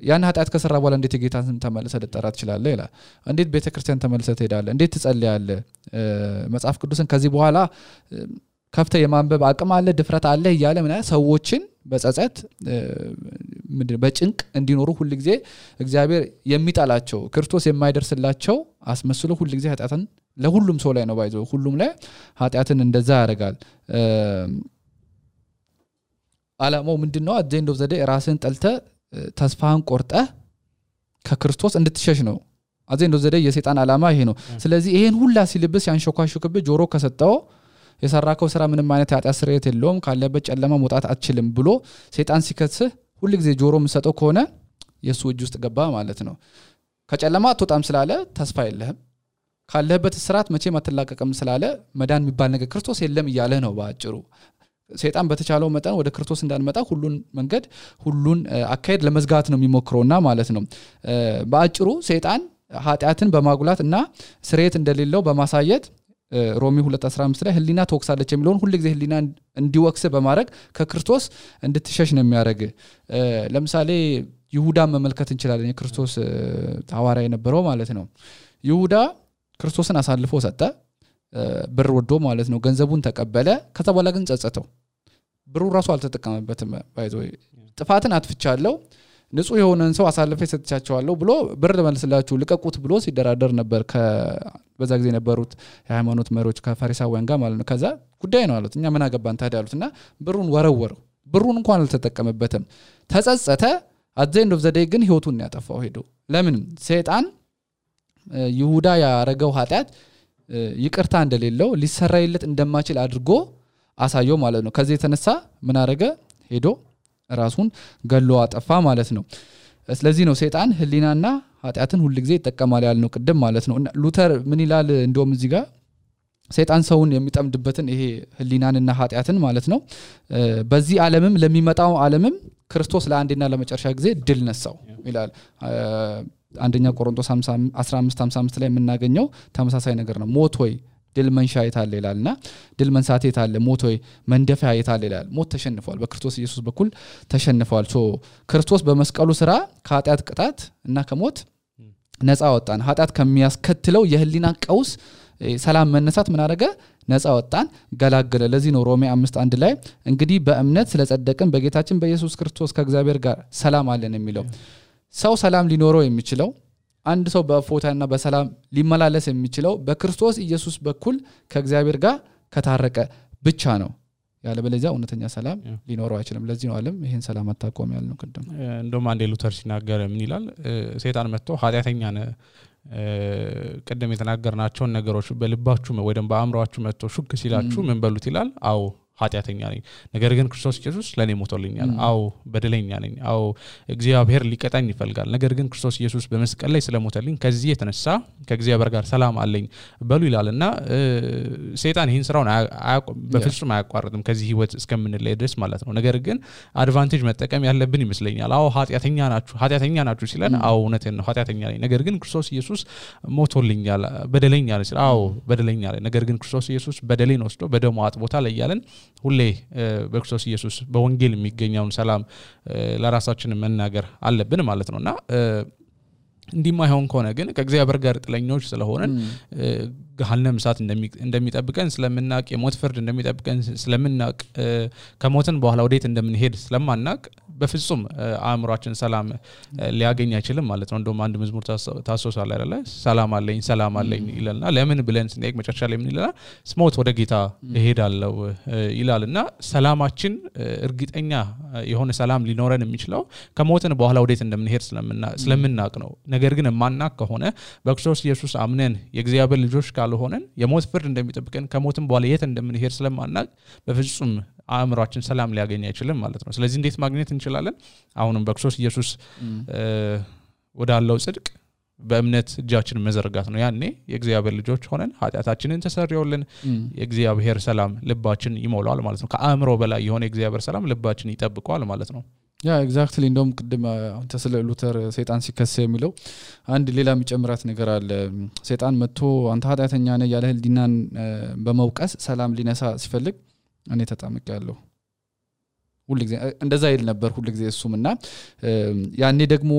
ያን ኃጢያት ከሰራ በኋላ እንዴት ጌታን ተመለሰ ልጠራት ይችላል ይላል እንዴት ቤተክርስቲያን ተመለሰ ትሄዳለህ እንዴት ትጸልያለህ መጽሐፍ ቅዱስን ከዚህ በኋላ ከፍተ የማንበብ አቅም አለ ድፍረት አለ ይያለ ምን ሰዎችን በጸጸት በጭንቅ እንዲኖሩ ሁሉ ጊዜ እግዚአብሔር የሚጣላቸው ክርስቶስ የማይደርስላቸው አስመስሎ ሁሉ ጊዜ ኃጢያትን ለሁሉም ሰው ላይ ነው ባይዘው ሁሉም ላይ ኃጢያትን እንደዛ ያረጋል አላማው ምንድነው አጀንዳው ዘዴ ራስን ጠልተ ተስፋን ቆርጠ ከክርስቶስ እንድትሸሽ ነው አጀንዳው ዘዴ የሰይጣን አላማ ይሄ ነው ስለዚህ ይሄን ሁላ ሲልብስ ያንሾካሹክብ ጆሮ ከሰጠው የሰራከው ስራ ምንም አይነት ኃጢያት ስርየት የለውም ካለበት ጨለማ መውጣት አትችልም ብሎ ሰይጣን ሲከስህ ሁሉ ጊዜ ጆሮ መስጠው ከሆነ የሱ እጅ ውስጥ ገባ ማለት ነው ከጨለማ አትወጣም ስላለ ተስፋ የለህም ካለበት ስራት መቼም አትላቀቅም ስላለ መዳን የሚባል ነገር ክርስቶስ የለም ይያለ ነው ባጭሩ ሰይጣን በተቻለው መጠን ወደ ክርስቶስ እንዳንመጣ ሁሉን መንገድ ሁሉን አካሄድ ለመዝጋት ነው የሚሞክረውና ማለት ነው ባጭሩ ሰይጣን ኃጢያትን በማጉላትና ስርየት እንደሌለው በማሳየት ሮሚ 2:15 ላይ ህሊና ተወክሳለች የሚለውን ሁሉ ጊዜ ህሊና እንዲወክስ በማድረግ ከክርስቶስ እንድትሸሽ ነው የሚያደርግ ለምሳሌ ይሁዳ መመልከት እንችላለን የክርስቶስ ሐዋርያ የነበረው ማለት ነው ይሁዳ ክርስቶስን አሳልፎ ሰጠ ብር ወዶ ማለት ነው ገንዘቡን ተቀበለ ከዛ በኋላ ግን ጸጸተው ብሩ ራሱ አልተጠቀመበትም ባይዘው ጥፋትን አጥፍቻለሁ ንጹህ የሆነን ሰው አሳልፈ ሰጥቻቸዋለሁ ብሎ ብር መልስላችሁ ልቀቁት ብሎ ሲደራደር ነበር በዛ ጊዜ ነበሩት የሃይማኖት መሪዎች ከፈሪሳውያን ጋር ማለት ነው ከዛ ጉዳይ ነው አሉት እኛ ምን አገባን ታዲያ አሉትና ብሩን ወረወረው ብሩን እንኳን አልተጠቀመበትም ተጸጸተ at the end of the day ግን ህይወቱን ያጠፋው ሄዶ ለምን ሰይጣን ይሁዳ ያረጋው ኃጢያት ይቅርታ እንደሌለው ሊሰራይለት እንደማይችል አድርጎ አሳየው ማለት ነው ከዚህ የተነሳ ምን አረገ ሄዶ ራሱን ገሎ አጠፋ ማለት ነው ስለዚህ ነው ሰይጣን ህሊናና ኃጢያትን ሁሉ ጊዜ ይተቀማል ያልነው ቅድም ማለት ነው ሉተር ምን ይላል እንደውም እዚህ ጋር ሰይጣን ሰውን የሚጠምድበትን ይሄ ህሊናንና ኃጢያትን ማለት ነው በዚህ ዓለምም ለሚመጣው ዓለምም ክርስቶስ ለአንዴና ለመጨረሻ ጊዜ ድል ነሳው ይላል አንደኛ ቆሮንቶስ 15:55 ላይ የምናገኘው ተመሳሳይ ነገር ነው ሞት ሆይ ድል መንሻ የታለ ይላልና ድል መንሳት የታለ ሞት ሆይ መንደፊያ የታለ ይላል ሞት ተሸንፏል በክርስቶስ ኢየሱስ በኩል ተሸንፏል ክርስቶስ በመስቀሉ ስራ ከኃጢያት ቅጣት እና ከሞት ነፃ ወጣን ኃጢያት ከሚያስከትለው የህሊና ቀውስ ሰላም መነሳት ምን አደረገ ነፃ ወጣን ገላገለ ለዚህ ነው ሮሜ 5:1 ላይ እንግዲህ በእምነት ስለጸደቅን በጌታችን በኢየሱስ ክርስቶስ ከእግዚአብሔር ጋር ሰላም አለን የሚለው ሰው ሰላም ሊኖረው የሚችለው አንድ ሰው በፎታና በሰላም ሊመላለስ የሚችለው በክርስቶስ ኢየሱስ በኩል ከእግዚአብሔር ጋር ከታረቀ ብቻ ነው ያለበለዚያ እውነተኛ ሰላም ሊኖረው አይችልም ለዚህ ነው ዓለም ይሄን ሰላም አጣቆም ያልነው ቅድም እንደውም አንዴ ሉተር ሲናገር ምን ይላል ሰይጣን መጥቶ ኃጢያተኛ ነህ ቀደም የተናገርናቸውን ነገሮች በልባችሁ ወይ ደግሞ በአእምሮአችሁ መጥቶ ሹክ ሲላችሁ ምን በሉት ይላል አው ኃጢያተኛ ነኝ ነገር ግን ክርስቶስ ኢየሱስ ለኔ ሞቶልኛል አው በደለኛ ነኝ አው እግዚአብሔር ሊቀጣኝ ይፈልጋል ነገር ግን ክርስቶስ ኢየሱስ በመስቀል ላይ ስለሞተልኝ ከዚህ የተነሳ ከእግዚአብሔር ጋር ሰላም አለኝ በሉ ይላልና ሰይጣን ይሄን ስራውን በፍጹም አያቋርጥም ከዚህ ህይወት እስከምንለይ ድረስ ማለት ነው ነገር ግን አድቫንቴጅ መጠቀም ያለብን ይመስለኛል አው ኃጢያተኛ ናችሁ ሲለን አው እውነቴን ነው ኃጢያተኛ ነኝ ነገር ግን ክርስቶስ ኢየሱስ ሞቶልኛል በደለኛ ነኝ አው በደለኛ ነኝ ነገር ግን ክርስቶስ ኢየሱስ በደሌን ወስዶ በደሙ አጥቦታል ይያለን ሁሌ በክርስቶስ ኢየሱስ በወንጌል የሚገኘውን ሰላም ለራሳችን መናገር አለብን ማለት ነውና እንዲማይሆን ከሆነ ግን ከእግዚአብሔር ጋር ጥለኞች ስለሆነን ገሃነም እሳት እንደሚጠብቀን ስለምናቅ የሞት ፍርድ እንደሚጠብቀን ስለምናቅ ከሞትን በኋላ ወዴት እንደምንሄድ ስለማናቅ በፍጹም አእምሮአችን ሰላም ሊያገኝ አይችልም ማለት ነው እንደውም አንድ መዝሙር ታሶሳለ አይደለ ሰላም አለኝ ይላልና ለምን ብለን ስንጠይቅ መጨረሻ ላይ ምን ይላል ስሞት ወደ ጌታ እሄዳለሁ ይላልና ሰላማችን እርግጠኛ የሆነ ሰላም ሊኖረን የሚችለው ከሞትን በኋላ ወዴት እንደምንሄድ ስለምናቅ ነው ነገር ግን ማናቅ ከሆነ በክርስቶስ ኢየሱስ አምነን የእግዚአብሔር ልጆች ካልሆነን የሞት ፍርድ እንደሚጠብቀን ከሞትን በኋላ የት እንደምንሄድ ስለማናቅ በፍጹም አእምሮአችን ሰላም ሊያገኝ አይችልም ማለት ነው ስለዚህ እንዴት ማግኘት እንችላለን አሁንም በክርስቶስ ኢየሱስ ወዳለው ጽድቅ በእምነት እጃችንን መዘርጋት ነው ያኔ የእግዚአብሔር ልጆች ሆነን ኃጢያታችንን ተሰርዮልን የእግዚአብሔር ሰላም ልባችን ይሞላል ማለት ነው ከአእምሮ በላይ የሆነ የእግዚአብሔር ሰላም ልባችን ይጠብቀዋል ማለት ነው ያ ኤግዛክትሊ እንደውም ቅድም አንተ ስለ ሉተር ሰይጣን ሲከሰ የሚለው አንድ ሌላ የሚጨምራት ነገር አለ ሰይጣን መጥቶ አንተ ኃጢያተኛ ነህ ያለ ህሊናን በመውቀስ ሰላም ሊነሳ ሲፈልግ እኔ ተጣምቄያለሁ ሁሉ ጊዜ እንደዛ ይል ነበር ሁሉ ጊዜ እሱምና ያኔ ደግሞ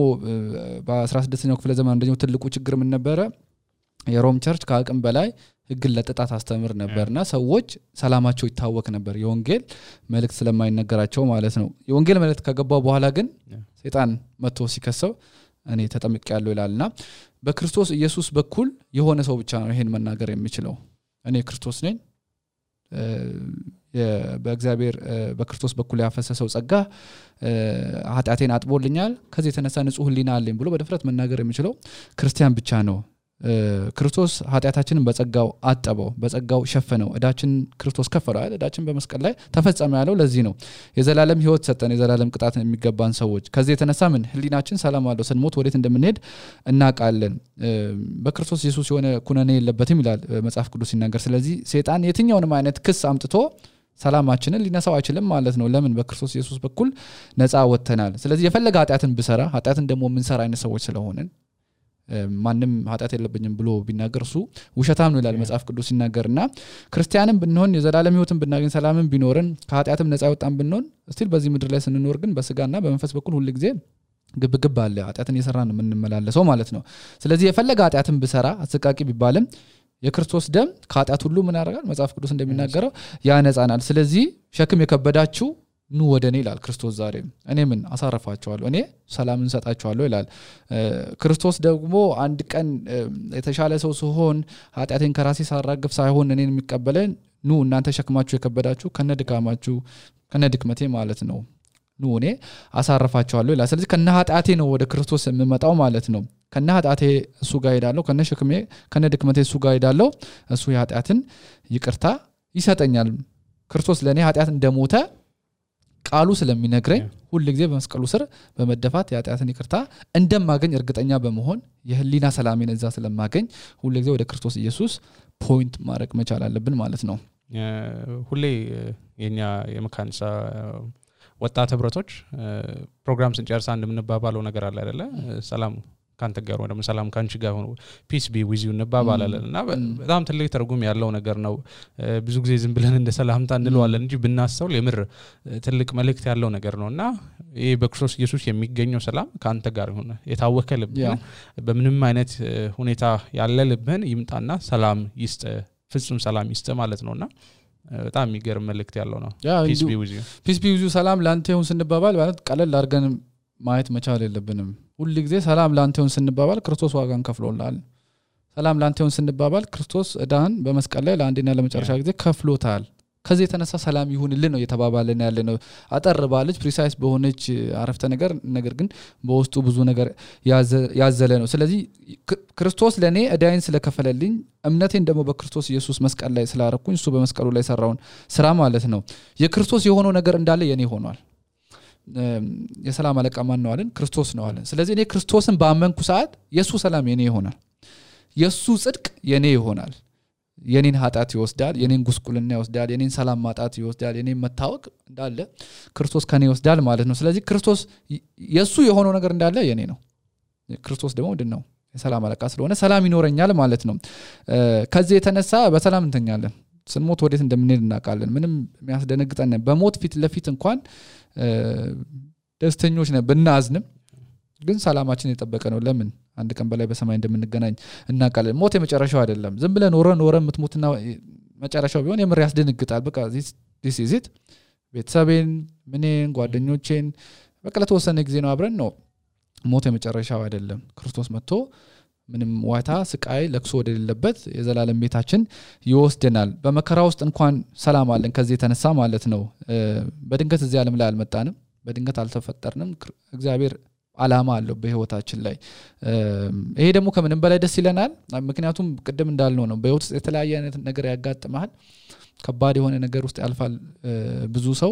በ16ኛው ክፍለ ዘመን እንደኛው ትልቁ ችግር ምን ነበር የሮም ቸርች ከአቅም በላይ ህግን ለጥጣት አስተምር ነበርና ሰዎች ሰላማቸው ይታወክ ነበር የወንጌል መልእክት ስለማይነገራቸው ማለት ነው የወንጌል መልእክት ከገባው በኋላ ግን ሰይጣን መጥቶ ሲከሰው እኔ ተጠምቄያለሁ ይላልና በክርስቶስ ኢየሱስ በኩል የሆነ ሰው ብቻ ነው ይሄን መናገር የሚችለው እኔ ክርስቶስ ነኝ በእግዚአብሔር በክርስቶስ በኩል ያፈሰሰው ጸጋ ኃጢአቴን አጥቦልኛል ከዚህ የተነሳ ንጹህ ህሊና አለኝ ብሎ በድፍረት መናገር የሚችለው ክርስቲያን ብቻ ነው ክርስቶስ ኃጢአታችንን በጸጋው አጠበው በጸጋው ሸፈነው እዳችን ክርስቶስ ከፈለው አይደል እዳችን በመስቀል ላይ ተፈጸመ ያለው ለዚህ ነው የዘላለም ህይወት ሰጠን የዘላለም ቅጣት የሚገባን ሰዎች ከዚህ የተነሳ ምን ህሊናችን ሰላም አለው ስንሞት ወዴት እንደምንሄድ እናቃለን በክርስቶስ ኢየሱስ የሆነ ኩነኔ የለበትም ይላል መጽሐፍ ቅዱስ ሲናገር ስለዚህ ሰይጣን የትኛውንም አይነት ክስ አምጥቶ ሰላማችንን ሊነሳው አይችልም ማለት ነው ለምን በክርስቶስ ኢየሱስ በኩል ነፃ ወጥተናል ስለዚህ የፈለገ ኃጢአትን ብሰራ ኃጢአትን ደግሞ ምን ሰራ አይነት ሰዎች ስለሆነን ማንንም ኃጢአት የለብኝም ብሎ ቢናገር እሱ ውሸታም ነው ይላል መጽሐፍ ቅዱስ ሲናገርና ክርስቲያንም ብንሆን የዘላለም ህይወትን ብናገኝ ሰላምን ቢኖርን ከኃጢአትም ነፃ ወጣን ብንሆን እስቲል በዚህ ምድር ላይ ስንኖር ግን በስጋና በመንፈስ በኩል ሁሉ ጊዜ ግብግብ አለ ኃጢአትን እየሰራን ነው የምንመላለሰው ማለት ነው ስለዚህ የፈለገ ኃጢአትን ብሰራ አሰቃቂ ቢባልም የክርስቶስ ደም ከኃጢአት ሁሉ ምን ያደርጋል መጽሐፍ ቅዱስ እንደሚናገረው ያነጻናል ስለዚህ ሸክም የከበዳችሁ ኑ ወደኔ ይላል ክርስቶስ ዛሬ እኔ ምን አሳረፋቸዋለሁ እኔ ሰላምን ሰጣቸዋለሁ ይላል ክርስቶስ ደግሞ አንድ ቀን የተሻለ ሰው ሲሆን ኃጢአቴን ከራሴ ሳራግፍ ሳይሆን እኔን የሚቀበለን ኑ እናንተ ሸክማችሁ የከበዳችሁ ከነድካማችሁ ከነድክመቴ ማለት ነው ኑ እኔ አሳርፋቸዋለሁ ይላል ስለዚህ ከነ ኃጢአቴ ነው ወደ ክርስቶስ የምመጣው ማለት ነው ከነ ኃጢአቴ እሱ ጋር ሄዳለሁ ከነ ሸክሜ ከነ ድክመቴ እሱ ጋር ሄዳለሁ እሱ የኃጢአትን ይቅርታ ይሰጠኛል ክርስቶስ ለኔ ኃጢአት እንደሞተ ቃሉ ስለሚነግረኝ ሁሉ ጊዜ በመስቀሉ ስር በመደፋት የኃጢአትን ይቅርታ እንደማገኝ እርግጠኛ በመሆን የህሊና ሰላሜን እዛ ስለማገኝ ሁሉ ጊዜ ወደ ክርስቶስ ኢየሱስ ፖይንት ማድረግ መቻል አለብን ማለት ነው ሁሌ የኛ የመካንሳ ወጣት ህብረቶች ፕሮግራም ስንጨርስ አንድ ምንባባለው ነገር አለ አይደለ ሰላም ካንተ ጋር ወደ ሰላም ካንቺ ጋር ሆኖ ፒስ ቢ ዊዝ ዩ እንባባላለንና በጣም ትልቅ ትርጉም ያለው ነገር ነው ብዙ ጊዜ ዝም ብለን እንደ ሰላምታ እንለዋለን እንጂ ብናስተውል የምር ትልቅ መልእክት ያለው ነገር ነውና ይሄ በክርስቶስ ኢየሱስ የሚገኘው ሰላም ካንተ ጋር ሆነ የታወከ ልብ በምንም አይነት ሁኔታ ያለ ልብን ይምጣና ሰላም ይስጥ ፍጹም ሰላም ይስጥ ማለት ነውና በጣም የሚገርም መልእክት ያለው ነው ፒስ ቢ ዊዝ ዩ ሰላም ላንተ ይሁን ስንባባል ማለት ቀለል አድርገን ማየት መቻል የለብንም ሁሉ ጊዜ ሰላም ላንተ ይሁን ስንባባል ክርስቶስ ዋጋን ከፍሎላል ሰላም ላንተ ይሁን ስንባባል ክርስቶስ እዳን በመስቀል ላይ ለአንዴና ለመጨረሻ ጊዜ ከፍሎታል ከዚህ የተነሳ ሰላም ይሁንልን ነው የተባባለን ያለነው አጠር ባለች ፕሪሳይስ በሆነች አረፍተ ነገር ግን በውስጡ ብዙ ነገር ያዘለ ነው ስለዚህ ክርስቶስ ለኔ እዳይን ስለከፈለልኝ እምነቴን ደግሞ በክርስቶስ ኢየሱስ መስቀል ላይ ስላረኩኝ እሱ በመስቀሉ ላይ ሰራውን ስራ ማለት ነው የክርስቶስ የሆነው ነገር እንዳለ የኔ ሆኗል የሰላም አለቃ ማን ነው አለን ክርስቶስ ነው አለን ስለዚህ እኔ ክርስቶስን ባመንኩ ሰዓት የሱ ሰላም የኔ ይሆናል የሱ ጽድቅ የኔ ይሆናል የኔን ኃጢአት ይወስዳል የኔን ጉስቁልና ይወስዳል የኔን ሰላም ማጣት ይወስዳል የኔን መታወቅ እንዳለ ክርስቶስ ከኔ ይወስዳል ማለት ነው ስለዚህ ክርስቶስ የሱ የሆነው ነገር እንዳለ የኔ ነው ክርስቶስ ደግሞ ምንድነው የሰላም አለቃ ስለሆነ ሰላም ይኖረኛል ማለት ነው ከዚህ የተነሳ በሰላም እንተኛለን ስንሞት ወዴት እንደምንሄድ እናውቃለን ምንም የሚያስደነግጠን በሞት ፊት ለፊት እንኳን ደስተኞች ነን ብናዝንም ግን ሰላማችን የጠበቀ ነው ለምን አንድ ቀን በላይ በሰማይ እንደምንገናኝ እናውቃለን ሞት የመጨረሻው አይደለም ዝም ብለን ኖረን ምትሞትና መጨረሻው ቢሆን የምር ያስደነግጣል በቃ this is it ቤተሰቤን ምንን ጓደኞቼን በቃ ለተወሰነ ጊዜ ነው አብረን ነው ሞት የመጨረሻው አይደለም ክርስቶስ መጥቶ ምንም ዋታ ስቃይ ለክሶ ወደሌለበት የዘላለም ቤታችን ይወስደናል በመከራ ውስጥ እንኳን ሰላም አለን ከዚህ የተነሳ ማለት ነው በድንገት እዚህ ዓለም ላይ አልመጣንም በድንገት አልተፈጠርንም እግዚአብሔር አላማ አለው በህይወታችን ላይ ይሄ ደግሞ ከምንም በላይ ደስ ይለናል ምክንያቱም ቅድም እንዳልነው ነው በህይወት ውስጥ የተለያየ አይነት ነገር ያጋጥማል ከባድ የሆነ ነገር ውስጥ ያልፋል ብዙ ሰው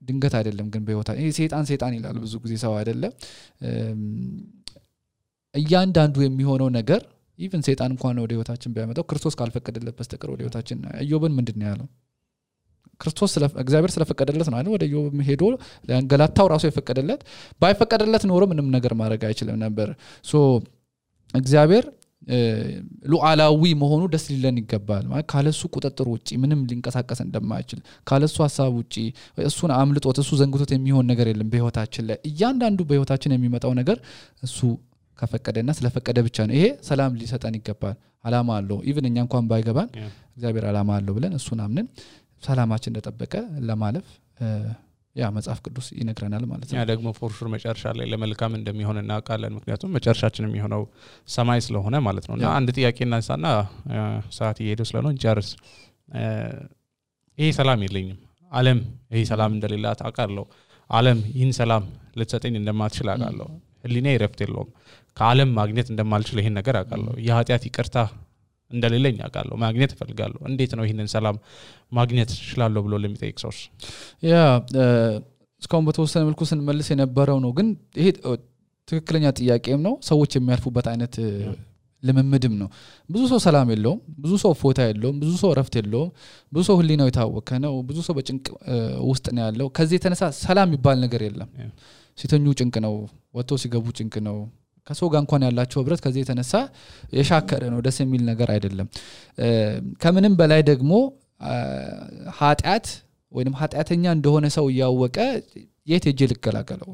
ድንገት አይደለም ግን በህይወታ ይሄ ሰይጣን ይላል ብዙ ጊዜ ሰው አይደለም እያንዳንዱ የሚሆነው ነገር ኢቭን ሰይጣን እንኳን ወደ ህይወታችን ቢያመጣው ክርስቶስ ካልፈቀደለት በስተቀር ወደ ህይወታችን ኢዮብን ምንድነው ያለው ክርስቶስ እግዚአብሔር ስለፈቀደለት ነው አይደል ወደ ኢዮብ ሄዶ ለአንገላታው ራሱ የፈቀደለት ባይፈቀደለት ኖሮ ምንም ነገር ማድረግ አይችልም ነበር ሶ እግዚአብሔር ሉዓላዊ መሆኑ ደስ ሊለን ይገባል ማለት ካለሱ ቁጥጥር ውጪ ምንም ሊንቀሳቀስ እንደማይችል ካለሱ ሐሳብ ውጪ እሱን አምልጦት እሱ ዘንግቶት የሚሆን ነገር የለም በህይወታችን ላይ እያንዳንዱ በህይወታችን የሚመጣው ነገር እሱ ከፈቀደና ስለፈቀደ ብቻ ነው ይሄ ሰላም ሊሰጠን ይገባል አላማ አለው ኢቭን እኛ እንኳን ባይገባን እግዚአብሔር አላማ አለው ብለን እሱን አምነን ሰላማችን እንደተጠበቀ ለማለፍ ያ መጽሐፍ ቅዱስ ይነግረናል ማለት ነው ያ ደግሞ ፎርሹር መጨረሻ ላይ ለመልካም እንደሚሆን እናውቃለን ምክንያቱም መጨረሻችን የሚሆነው ሰማይ ስለሆነ ማለት ነውና አንድ ጥያቄ እናንሳና ሰዓት እየሄደ ስለሆነ እንጨርስ ይሄ ሰላም የለኝም ዓለም ይሄ ሰላም እንደሌላት አውቃለሁ ዓለም ይህን ሰላም ልትሰጠኝ እንደማትችል አውቃለሁ ህሊናዬ ረፍት የለውም ከዓለም ማግኘት እንደማልችል ይሄን ነገር አውቃለሁ የኃጢአት ይቅርታ እንደሌለኝ አውቃለሁ ማግኘት እፈልጋለሁ እንዴት ነው ይሄንን ሰላም ማግኘት ይችላልው ብሎ ለሚጠይቅ ሰው ያ እስካሁን በተወሰነ መልኩ ስንመልስ የነበረው ነው ግን ይሄ ትክክለኛ ጥያቄም ነው ሰዎች የሚያልፉበት አይነት ለመምድም ነው ብዙ ሰው ሰላም የለውም ብዙ ሰው ፎታ የለውም ብዙ ሰው ረፍት የለውም ብዙ ሰው ህሊናው የታወከ ነው ብዙ ሰው በጭንቅ ውስጥ ነው ያለው ከዚህ የተነሳ ሰላም ይባል ነገር የለም ሲተኙ ጭንቅ ነው ወጥቶ ሲገቡ ጭንቅ ነው ከሰው ጋር እንኳን ያላቸው ህብረት ከዚህ የተነሳ የሻከረ ነው ደስ የሚል ነገር አይደለም ከምንም በላይ ደግሞ ኃጢአት ወይንም ኃጢአተኛ እንደሆነ ሰው ያወቀ የት ሄጄ ልከላከለው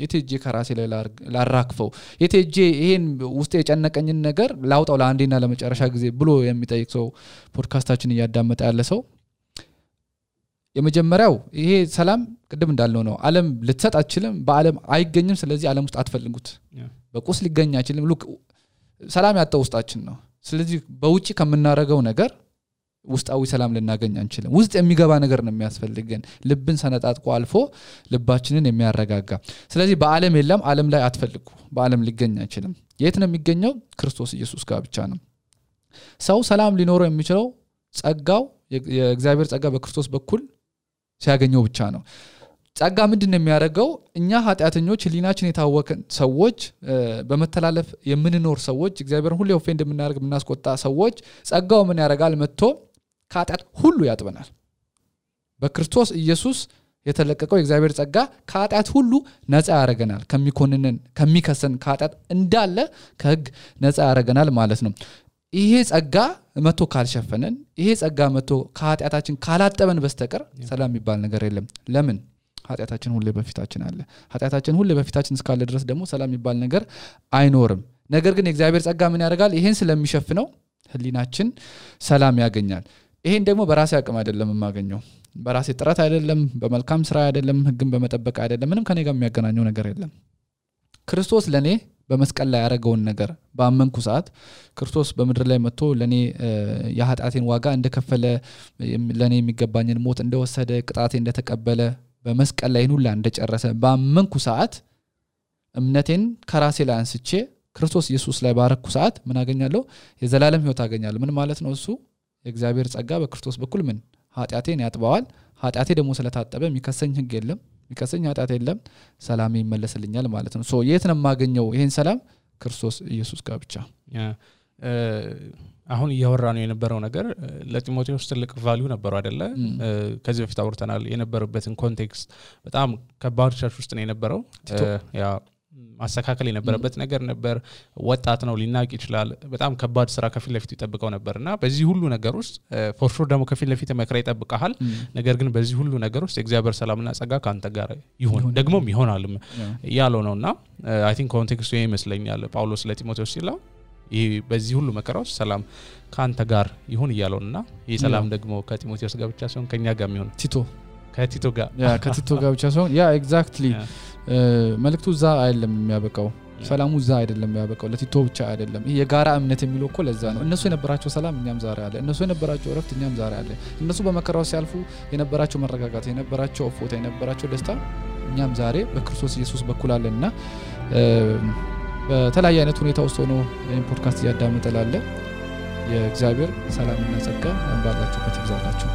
የት ሄጄ ከራሴ ላይ ላራክፈው የት ሄጄ ይሄን ውስጥ የጨነቀኝን ነገር ላውጣው ለአንዴና ለመጨረሻ ጊዜ ብሎ የሚጠይቅ ሰው ፖድካስታችን ያዳመጠ ያለ ሰው የመጀመሪያው ይሄ ሰላም ቅድም እንዳልነው ነው ዓለም ልትሰጥ አትችልም በዓለም አይገኝም ስለዚህ ዓለም ውስጥ አትፈልጉት በቁስ ሊገኝ አይችልም ሉክ ሰላም ያጣው ውስጣችን ነው ስለዚህ በውጪ ከምናረጋው ነገር ውስጣዊ ሰላም ልናገኝ አንችልም ውስጥ የሚገባ ነገር ነው የሚያስፈልገን ልብን ሰነጣጥቆ አልፎ ልባችንን የሚያረጋጋ ስለዚህ በአለም የለም ዓለም ላይ አትፈልጉ በአለም ሊገኝ አይችልም የት ነው የሚገኘው ክርስቶስ ኢየሱስ ጋር ብቻ ነው ሰው ሰላም ሊኖረው የሚችለው ጸጋው የእግዚአብሔር ጸጋ በክርስቶስ በኩል ሲያገኘው ብቻ ነው ጸጋ ምንድነው የሚያደርገው እኛ ኃጢአተኞች ህሊናችን የታወከን ሰዎች በመተላለፍ የምንኖር ሰዎች እግዚአብሔርን ሁሉ ኦፌንድ የምናደርግ የምናስቆጣ ሰዎች ጸጋው ምን ያደርጋል መጥቶ ከኃጢአት ሁሉ ያጥበናል በክርስቶስ ኢየሱስ የተለቀቀው የእግዚአብሔር ጸጋ ከኃጢአት ሁሉ ነፃ ያደርገናል ከሚኮንነን ከሚከሰን ከኃጢአት እንዳለ ከህግ ነፃ ያደርገናል ማለት ነው ይሄ ጸጋ መጥቶ ካልሸፈነን ይሄ ጸጋ መጥቶ ከኃጢአታችን ካላጠበን በስተቀር ሰላም የሚባል ነገር የለም ለምን ኃጢአታችን ሁሉ በፊታችን አለ ኃጢአታችን ሁሉ በፊታችን እስካለ ድረስ ደግሞ ሰላም የሚባል ነገር አይኖርም ነገር ግን የእግዚአብሔር ጸጋ ምን ያደርጋል ይሄን ስለሚሸፍነው ህሊናችን ሰላም ያገኛል ይሄን ደግሞ በራሴ አቅም አይደለም የማገኘው በራሴ ጥረት አይደለም በመልካም ስራ አይደለም ህግን በመጠበቅ አይደለም ምንም ከኔ ጋር የሚያገናኘው ነገር የለም ክርስቶስ ለኔ በመስቀል ላይ ያደረገውን ነገር በአመንኩ ሰዓት ክርስቶስ በመድር ላይ መጥቶ ለኔ የኃጢአቴን ዋጋ እንደከፈለ ለኔ የሚገባኝን ሞት እንደወሰደ ቅጣቴ እንደተቀበለ በመስቀል ላይ ሁሉ እንደጨረሰ በአመንኩ ሰዓት እምነቴን ከራሴ ላይ አንስቼ ክርስቶስ ኢየሱስ ላይ ባረኩ ሰዓት ምን አገኛለሁ የዘላለም ህይወት አገኛለሁ ምን ማለት ነው እሱ የእግዚአብሔር ጸጋ በክርስቶስ በኩል ምን ኃጢአቴን ያጥባዋል ኃጢአቴ ደግሞ ስለታጠበ የሚከሰኝ ህግ የለም የሚከሰኝ ኃጢአት የለም ሰላም ይመለስልኛል ማለት ነው ሶ የት ነው ማገኘው ይሄን ሰላም ክርስቶስ ኢየሱስ ጋር ብቻ አሁን እያወራነው የነበረው ነገር ለጢሞቴዎስ ትልቅ ቫልዩ ነበረው አይደለ ከዚህ በፊት አውርተናል የነበረበትን ኮንቴክስት በጣም ከባድ ቸርች ውስጥ ነው የነበረው ያ ማስተካከል የነበረበት ነገር ነበር ወጣት ነው ሊናቅ ይችላል በጣም ከባድ ስራ ከፊት ለፊት ይጠብቀው ነበርና በዚህ ሁሉ ነገር ውስጥ ፎር ሹር ደግሞ ከፊት ለፊት መከራ ይጠብቃል ነገር ግን በዚህ ሁሉ ነገር ውስጥ የእግዚአብሔር ሰላምና ጸጋ ካንተ ጋር ይሁን ደግሞም ይሆናል ያለው ነውና አይ ቲንክ ኮንቴክስቱ ይመስለኛል ጳውሎስ ለጢሞቴዎስ ሲለው ይሄ በዚህ ሁሉ መከራ ውስጥ ሰላም ካንተ ጋር ይሁን ይያለውና ይሄ ሰላም ደግሞ ከጢሞቴዎስ ጋር ብቻ ሳይሆን ከኛ ጋር ይሁን ከቲቶ ጋር ብቻ ሳይሆን ያ ኤግዛክትሊ መልእክቱ ዛ አይደለም የሚያበቃው ሰላሙ ዛ አይደለም የሚያበቃው ለቲቶ ብቻ አይደለም ይሄ የጋራ እምነት የሚለው እኮ ለዛ ነው እነሱ የነበራቸው ሰላም እኛም ዛሬ አለ እነሱ የነበራቸው ረፍት እኛም ዛሬ አለ እነሱ በመከራው ሲያልፉ የነበራቸው መረጋጋት የነበራቸው ፎታ የነበራቸው ደስታ እኛም ዛሬ በክርስቶስ ኢየሱስ በኩል አለና በተለያየ አይነት ሁኔታ ውስጥ ሆኖ ይሄን ፖድካስት ያዳምጣላለ የእግዚአብሔር ሰላምና ጸጋ እንባላችሁበት ይብዛላችሁ